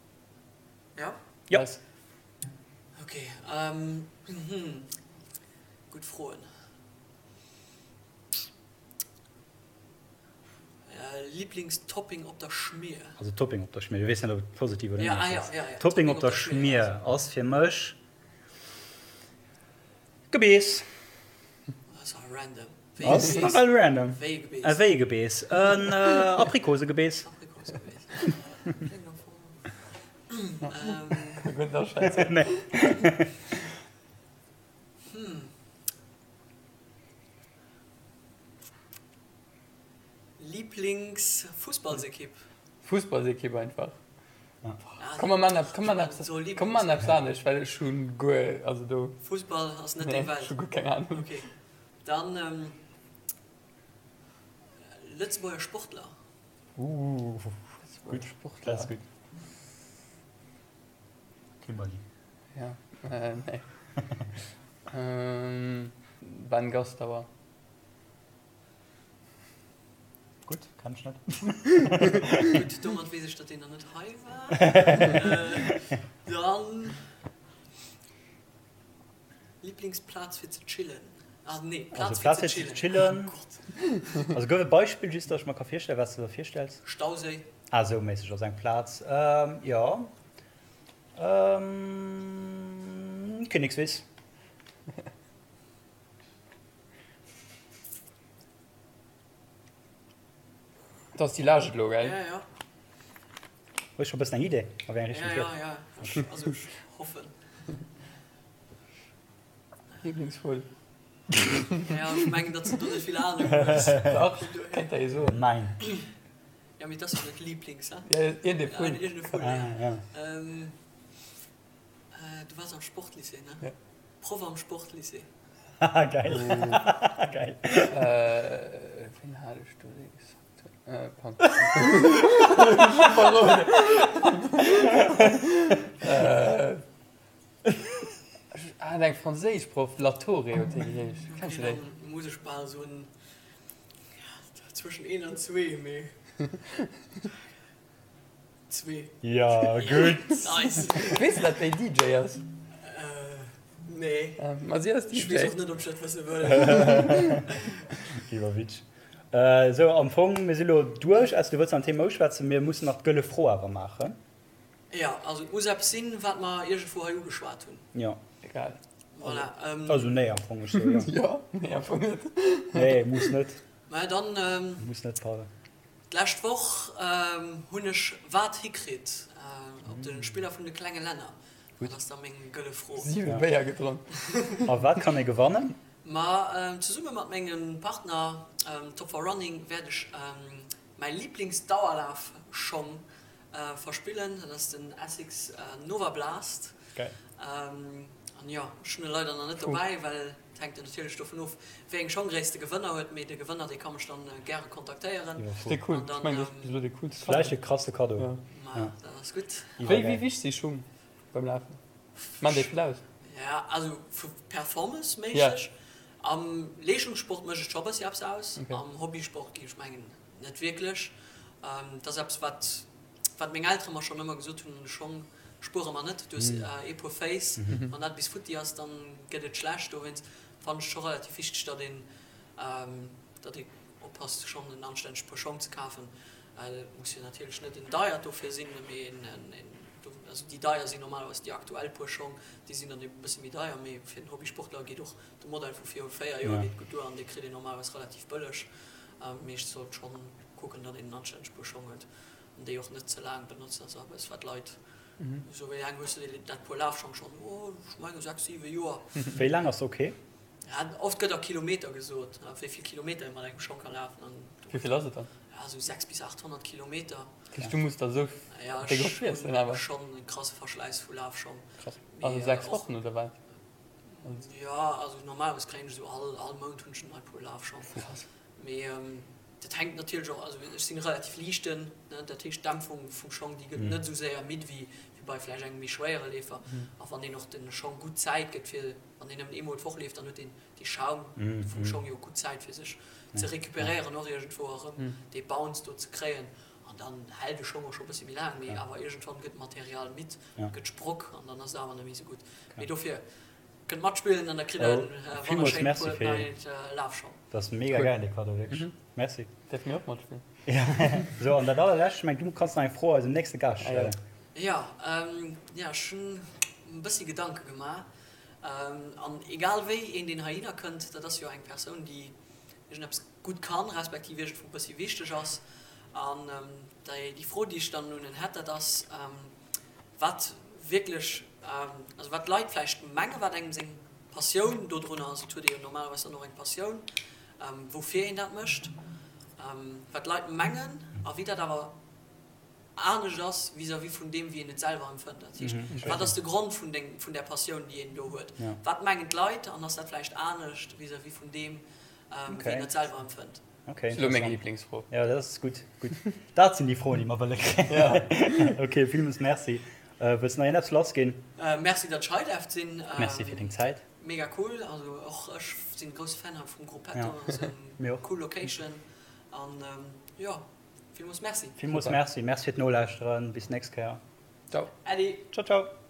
Ja? Ja. Nice. Okay, ähm, mhm. Gutt Froen. Lieblingstopping op der Schmier? Also Topping op der Schmier, du weess net ob et positiv oder Ja, ah, negativ ja, ass. ja, ja. Topping op der Schmier ass fir mech Gebeess. Ass awer random. Wéi Ass Gebeess? nawell random. Wéi e Gebeess? E wéi e Gebeess? En Aprikosegebeess. Aprikosegebeess. Kléngt am Fong. Ähm. Gutt Aschätzung. Nee. Hm. Lieblingsfussballsekipp? Fussballsekipp einfach. Komm mer man eppes, komm mer eppes, komm mer eppes anescht, well ech hunn guer, also do. Fussball ass net deng Welt? Ech hu guer keng Ahnung. Ok, dann Lëtzebuerger Sportler? Ooh, Lëtzebuerger Sportler. Dat ass gutt. Kimberly. Ja, nee. Ben Gastauer. Gutt, kenn ech net. Gutt, domat weess ech, datt deen nach net hei war. Dann Liblingsplaz fir ze chillen? Ah nee, Also Plaz fir Plaz ze fir ze chillen. chillen. Oh Gott. Also gouf e Beispill, just datt ech mer ka virstellen, wat s de der virstells. Stauséi. Ah, esou méisseg ass eng Plaz. Jo. Kinnekswiss. Dat ass déi Laascht elo, gell? Ja, ja. Hues scho bëssen eng Idee, a wéi eng Richtung Ja, et ja, geet? ja. Ech, also ech hoffen. Lieblingsvull. Ja, ech mengen, datt s de do net vill Anung hues. Dach, kéint der ee soen. Mäin. Ja, mee et ass jo net Lieblings, he? Ja, iergendee Vull. Iergendee Vull, Ah, ja. ja. Du waars am Sportlycée, ne? Ja. Proff am Sportlycée. Haha, geil. Geil. Ween hat ech do, dee gesackt huet? Pardon. Ech verroden. Ech hat eng franséisch Proff, Latoré huet déi geheescht. Kenns du déi? Dann muss ech bal soen, zwëschen een an zwee, mee zwee. Ja, gutt. Nice. Weess de, dat déi DJ ass? Nee. Ma si ass DJ. Ech weess och net, ob ech dat wësse wëll. Iwwerwitsch. Sou, am Fong, mir si lo duerch. Ausser du wëlls nach en Thema uschwätzen. Mir mussen nach d'gëlle Fro awer maachen. Jo, also et muss eppes sinn, wat mer iergendwou hei ugeschwat hunn. Jo. Egal. Voilà. Also nee, am Fong, ech soe jo. Jo, nee, am Fong net. Nee, muss net. Mä dann. Muss net, pardon. D'lescht Woch hunn ech wat hikritt op de Spiller vun de klenge Länner? Dat ass da meng gëlle Fro. 7 Béier gedronk. A wat kann ee gewannen? Ma zesumme mat mengem Partner Top for Running wäert ech mäi Liblingsdauerlafschong verspillen. Dat ass den Asics Nova Blast. Geil. An jo, ech hunn e leider nach net dobäi, well et hänkt jo natierlech dovun of, wéi eng Schonggréisst de Gewënner huet. Mee de Gewënner, dee ka mech dann gäre kontaktéieren. Ass dee cool. Ech mengen, dat ass bis elo dee coolste Cadeau. Vläicht e krasse Cadeau. Jo. Ma dat ass gutt. Wéi wéi wichteg si Schung beim Lafen? Maan déi vill aus? Ja, also vu performanceméisseg. Am Leeschtungssport mécht et scho e bëssi eppes aus. Am Hobbysport géif ech mengen, Net wierklech. Dat ass eppes, wat, wat meng Eltere mer schonn ëmmer gesot hunn, Schong spuere mer net, du hues ee Puer Féiss, wann dat bis futti ass, dann gëtt et schlecht. Dowéinst fannen ech et scho relativ wichteg, datt een, datt ee oppasst, schonn en anstännegt Puer Schong ze kafen. Et muss jo natierlech net en deiert dofir sinn, mee en, en, also déi deier sinn normalerweis déi aktuell Puer Schong, déi sinn dann e bësse méi deier, mee fir den Hobbysportler geet och de Modell vu viru 4 Joer geet gutt duer an dee kritt een normalerweis relativ bëlleg. Mee ech sollt schonn kucken, datt een en anstänneg Puer Schong huet an déi och net ze laang benotzt. Dat ass eppes, wat d'Leit esou, Wéi laang hues de dat Puer Lafschong schonn? Oh, ech menge 6, 7 Joer. Wéi laang ass ok? Ja, oft gëtt a Kilometer gesot, wéi vill Kilometer ee mat engem Schong ka lafen. An Wéi vill ass et dann? Ja, esou 6 bis 800 Kilometer. Dat heescht, du muss der esou déck op friessen awer? Ja, ech hu schonn e krasse Verschläiss vu Lafschong. Krass. Also 6 Wochen oder wat? Jo, also normalerweis kréien ech esou all all Mount hunn ech en nei Puer Lafschong. Mee dat hänkt natierlech och, also ech sinn relativ liichten, ne, dat heescht d'Dämpfung vum Schong déi gëtt net esou séier midd wéi wéi bei vläicht engem méi schwéiere Leefer. A wann een och de Schong gutt Zäit gëtt fir, wann een nëmmen eemol d'Woch leeft, dann huet deen dee Schaum vum Schong jo gutt Zäit fir sech ze recuperéieren och iergendwou a rëm dee Bounce do ze kréien. An dann hält e Schong och scho bëssi méi laang, mee awer iergendwann gëtt d'Material midd, gëtt sprock an dann ass et awer net méi esou gutt. Mee dofir, kënnt matspillen an da kritt der e wonnerschéint Puer neit Lafschong. Dat ass mega gäil, dee Cadeau, wierklech. Merci. Däerfe mir och matspillen? Sou, an dat allerlescht, ech mengen, du kanns nach eng Fro eisem nächste Gaascht stellen. Jo, jo, ech hunn e bëssi Gedanke gemaach. An egal wéi een, deen heihinner kënnt, dat ass jo eng Persoun, déi iergendeppes gutt kann, respektiv iergendwou e bëssi wichteg ass. An déi Fro, déi ech dann un en hätt, dat ass, wat wierklech, also wat d'Leit vläicht mengen, wat engem seng Passioun dodrun ass, et huet ee jo normalerweis dann och eng Passioun, woufir een dat mécht, wat d'Leit mengen a wéi dat awer anescht ass vis-à-vis vun deem, wéi een et selwer empfënnt. Dat heescht, wat ass de Grond vun deng, vun där Passioun, déi een do huet? Wat mengen d'Leit an ass dat vläicht anescht vis-à-vis vun deem, wéi een et selwer empfënnt? Okay, Lo meng Lieblingsfro. Ja, dat ass gutt, gutt. Dat sinn déi Froen, déi mer wëlle kréien. Okay, villmools Merci. Wëlls de nach iergendeppes lassginn? Merci, datt ech hei däerft sinn. Merci fir deng Zäit. Mega cool. Also och ech sinn grousse Fan hei vum Gruppetto. Ja, mir och. Cool Location an jo, villmools Merci. Villmools Merci. Merci fir d'Nolauschteren. Bis d'nächst Kéier. Ciao. Äddi. Ciao, ciao.